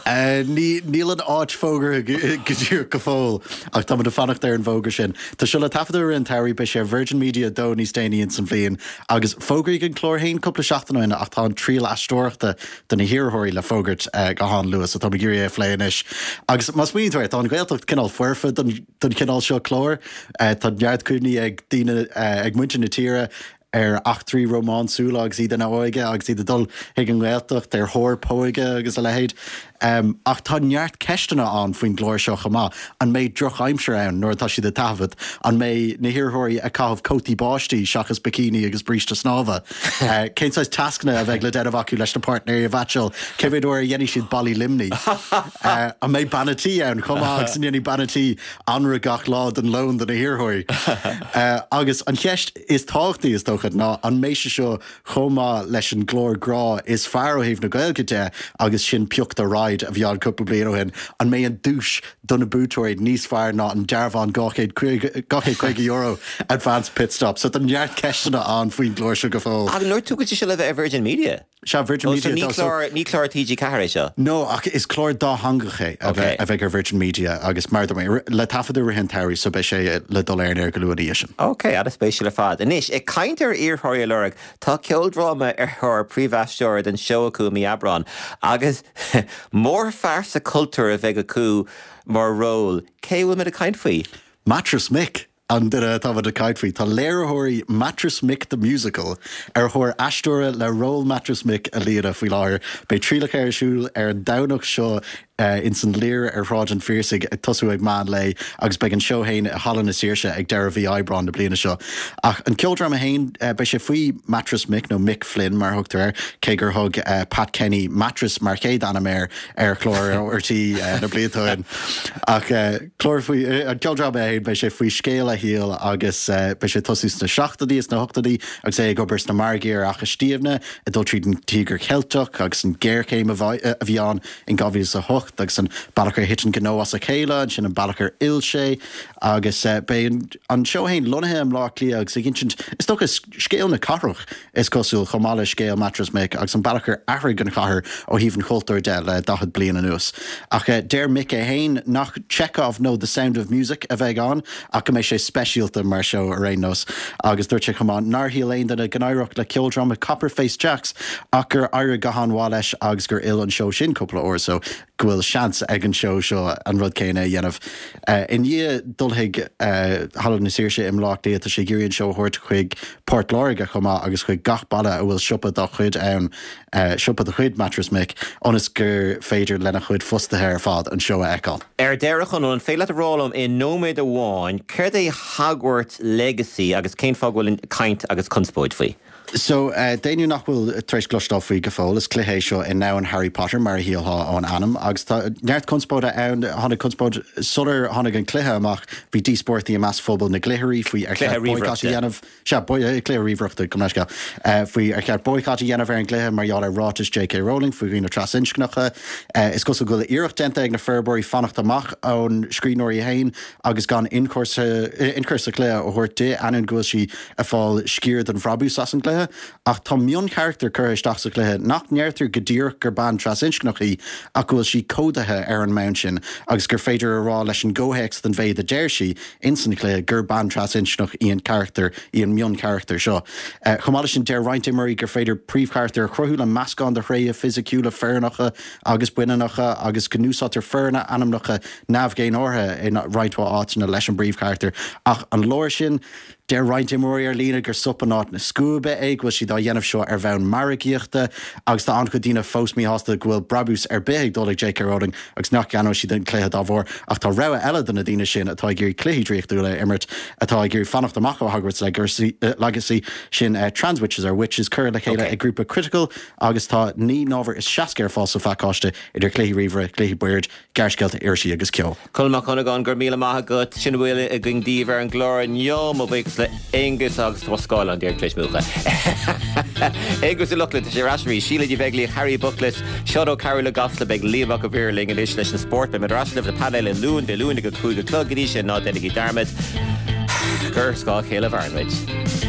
Níl an áit fógartha go díreach go fóill ach táimid ag fanacht ar an bhfógra sin. Tá seo le taifeadadh i rith an tsamhraidh, beidh sé ar Virgin Media 2 níos déanaí ins an bhliain agus fógraíodh an clár féin cúpla seachtain ó shin ach tá an triail aisteoireachta do na hiarrthóirí le fógairt go han-luath so táim ag iarraidh é a phlé anois. Agus má smaoiníonn tú air, tá an Ghaeltacht cineál foirfe don chineál seo cláir. Tá neart cuimhní ag daoine, ag muintir na tíre ar eachtraí rómánsúla agus iad ina óige agus iad ag dul chuig an nGaeltacht ar thóir póige agus a leithéid. Ach tá neart ceisteanna ann faoin gclár seo chomh maith. An mbeidh drochaimsir ann nuair atá siad ag taifead? An mbeidh na hiarrthóirí ag caitheamh cótaí báistí seachas bikini agus bríste snámha? Cén saghas tascanna a bheidh le déanamh acu leis na páirtnéirí a mheaitseáil? Cé mhéad uair a dhéanfaidh siad ballaí Luimnigh? An mbeidh bean a' tí ann chomh maith agus an ndéanfaidh bean a' tí anraith gach lá den lón do na hiarrthóirí? Agus an cheist is tábhachtaí, is dócha, ná an mbeidh sé seo chomh maith leis an gclár grá is fearr ó thaobh na Gaeilge de agus sin Pioc do Ride a bhí ann cúpla bliain ó shin, an mbeidh an duais do na buaiteoirí níos fearr ná an dearbhán €250 Advance Pitstop? So tá neart ceisteanna ann faoin gclár seo go fóill. Ach dúirt tú go bhfuil sé seo le bheith ar Virgin Media? Sea, Virgin Oh, Media so ní so clár, ní clár TG4 é seo? No, ach is clár dátheangach é a bheidh, a bheidh ar Virgin Media agus mar a dúirt mé, le taifeadadh i rith an tsamhraidh so beidh sé le dul ar an aer go luath ina dhiaidh sin. Ok, an-spéisiúil ar fad. Anois, ag caint ar iarrthóirí a lorg, tá ceoldráma ar thóir príomhaisteora don seó acu i mí Aibreáin agus mórphearsa cultúir a bheidh acu mar ról. Cé a bhfuil muid ag caint faoi? Mattress Mick! An duine atá muid ag caint faoi, tá léiritheoirí Mattress Mick the Musical ar thóir aisteora le ról Mattress Mick a líonadh faoi láthair. Beidh trialacha ar siúl ar an Domhnach seo ins an Lir ar Shráid an Phiarsaigh ag tosú ag meán lae agus beidh an seó féin i Halla na Saoirse ag deireadh mhí Aibreáin na bliana seo. Ach an ceoldráma féin, beidh sé faoi Mattress Mick, nó Mick Flynn mar a thugtar air, cé gur thug Pat Kenny Mattress mar chéad ainm air ar chlár RTÉ na blianta ó shin. Ach. Clár faoi, an ceoldráma é féin, beidh sé faoi scéal a shaoil agus beidh sé ag tosú sna seachtóidí is sna hochtóidí agus é ag obair sna margaí ar Fhaiche Stiabhna, ag dul tríd an Tíogar Cheilteach agus an ghéarchéim a bhí ann in 2008 agus an bealach ar thit an gnó as a chéile, ansin an bealach ar fhill sé agus beidh an seó féin lonnaithe i mBleá Cliath agus ag insint, is dócha, scéal na cathrach. Is cosúil, chomh maith le scéal Mattress Mick agus an bealach ar athraigh an chathair ó thaobh an chultúir de le 40 bliain anuas. Ach deir Mick é féin nach Chekhov nó The Sound of Music a bheidh ann ach go mbeidh sé speisialta mar seó ar aon nós. Agus dúirt sé chomh maith nár shíl aon duine go n-éireodh le ceoldráma Copper Face Jacks ach gur éirigh go han-mhaith leis agus gur fhill an seó sin cúpla uair so go bhfuil seans ag an seó seo an rud céanna a dhéanamh. I ndiaidh dul chuig Halla na Saoirse i mBleá Cliath, tá sé ag iarraidh an seó a thabhairt chuig Port Láirge chomh maith agus chuig gach baile a bhfuil siopa dá chuid ann, siopa de chuid Mattress Mick, ionas gur féidir lena chuid fostaithe ar fad an seó a fheiceáil. Ar deireadh, a Chonaill, an féidir leat a rá liom i nóiméad amháin céard é Hogwarts Legacy agus cén fáth go bhfuil caint agus conspóid faoi? So, d'éinne nach bhfuil tar éis cloisteáil faoi go fóill, is cluiche é seo i ndomhan Harry Potter, mar a shílfeá ón ainm, agus tá neart conspóide ann. Tháinig conspóid sular tháinig an cluiche amach, bhí díospóireachtaí i measc phobal na gcluichirí faoi ar cheart boycott a dhéanamh, sea, cluiche ríomhaireachta, gabh mo leithscéal, faoi ar cheart boycott a dhéanamh ar an gcluiche mar gheall ar ráitis J.K. Rowling faoi dhaoine trasinscneacha. Is cosúil go bhfuil iarracht déanta ag na forbróirí fanacht amach ón scríbhneoir í féin agus gan ionchur sa chluiche a thabhairt di, ainneoin go bhfuil sí ag fáil sciar den bhrabús as an gcluiche, ach tá mioncharachtar curtha isteach sa chluiche nach ndeirtear go díreach gur bean trasinscneach í ach go bhfuil sí códaithe ar an mbonn sin agus gur féidir a rá leis an gcomhthéacs den mhéid a deir sí ins an chluiche gur bean trasinscneach í an carachtar, í an mioncharachtar seo. Chomh maith leis sin, deir roinnt imreoirí gur féidir príomhcharachtar a chruthú le meascán de thréithe fisiciúla fireannacha agus baineannacha agus go n-úsáidtear forainmneacha neamh-dhénártha i roinnt mhaith áiteanna leis an bpríomhcharachtar ach an leor sin? Deir roinnt imreoirí ar líne gur sop in áit na scuaibe é, go bhfuil siad á dhéanamh seo ar bhonn margaíochta agus tá an-chuid daoine fós míshásta go bhfuil brabús ar bith ag dul ag JK Rowling agus nach gceannóidh siad an cluiche dá bharr. Ach tá rogha eile do na daoine sin atá ag iarraidh cluichí draíochtúla a imirt, atá ag iarraidh fanacht amach ó Hogwarts Legacy, sin Trans Witches Are Witches, curtha le chéile ag grúpa Critical agus tá 69 n-ábhar ar fáil sa phacáiste idir chluichí ríomhaire, chluichí boird, gearrscéalta, irisí agus ceol. Conall Mac Dhonnagáin, go raibh míle maith agat. Sin a bhfuil againn daoibh ar an gclár inniu. Mo bhuíochas le Aonghus agus tá scáileán díreach tar éis múchadh. Aonghus Ó Lochlainn, tá sé ar ais arís. Síle Ní Bheaglaoich, Harry Bookless, Seán Ó Cearúil i gCasla, beidh Liam Mac an Mhaoir linn anois leis an spórt. Beidh muid ar ais libh le painéal Uí Luain Dé Luain ag a 5 a chlog. Go dtí sin, ná déanaigí dearmad gur ar scáth a chéile a mhaireann muid.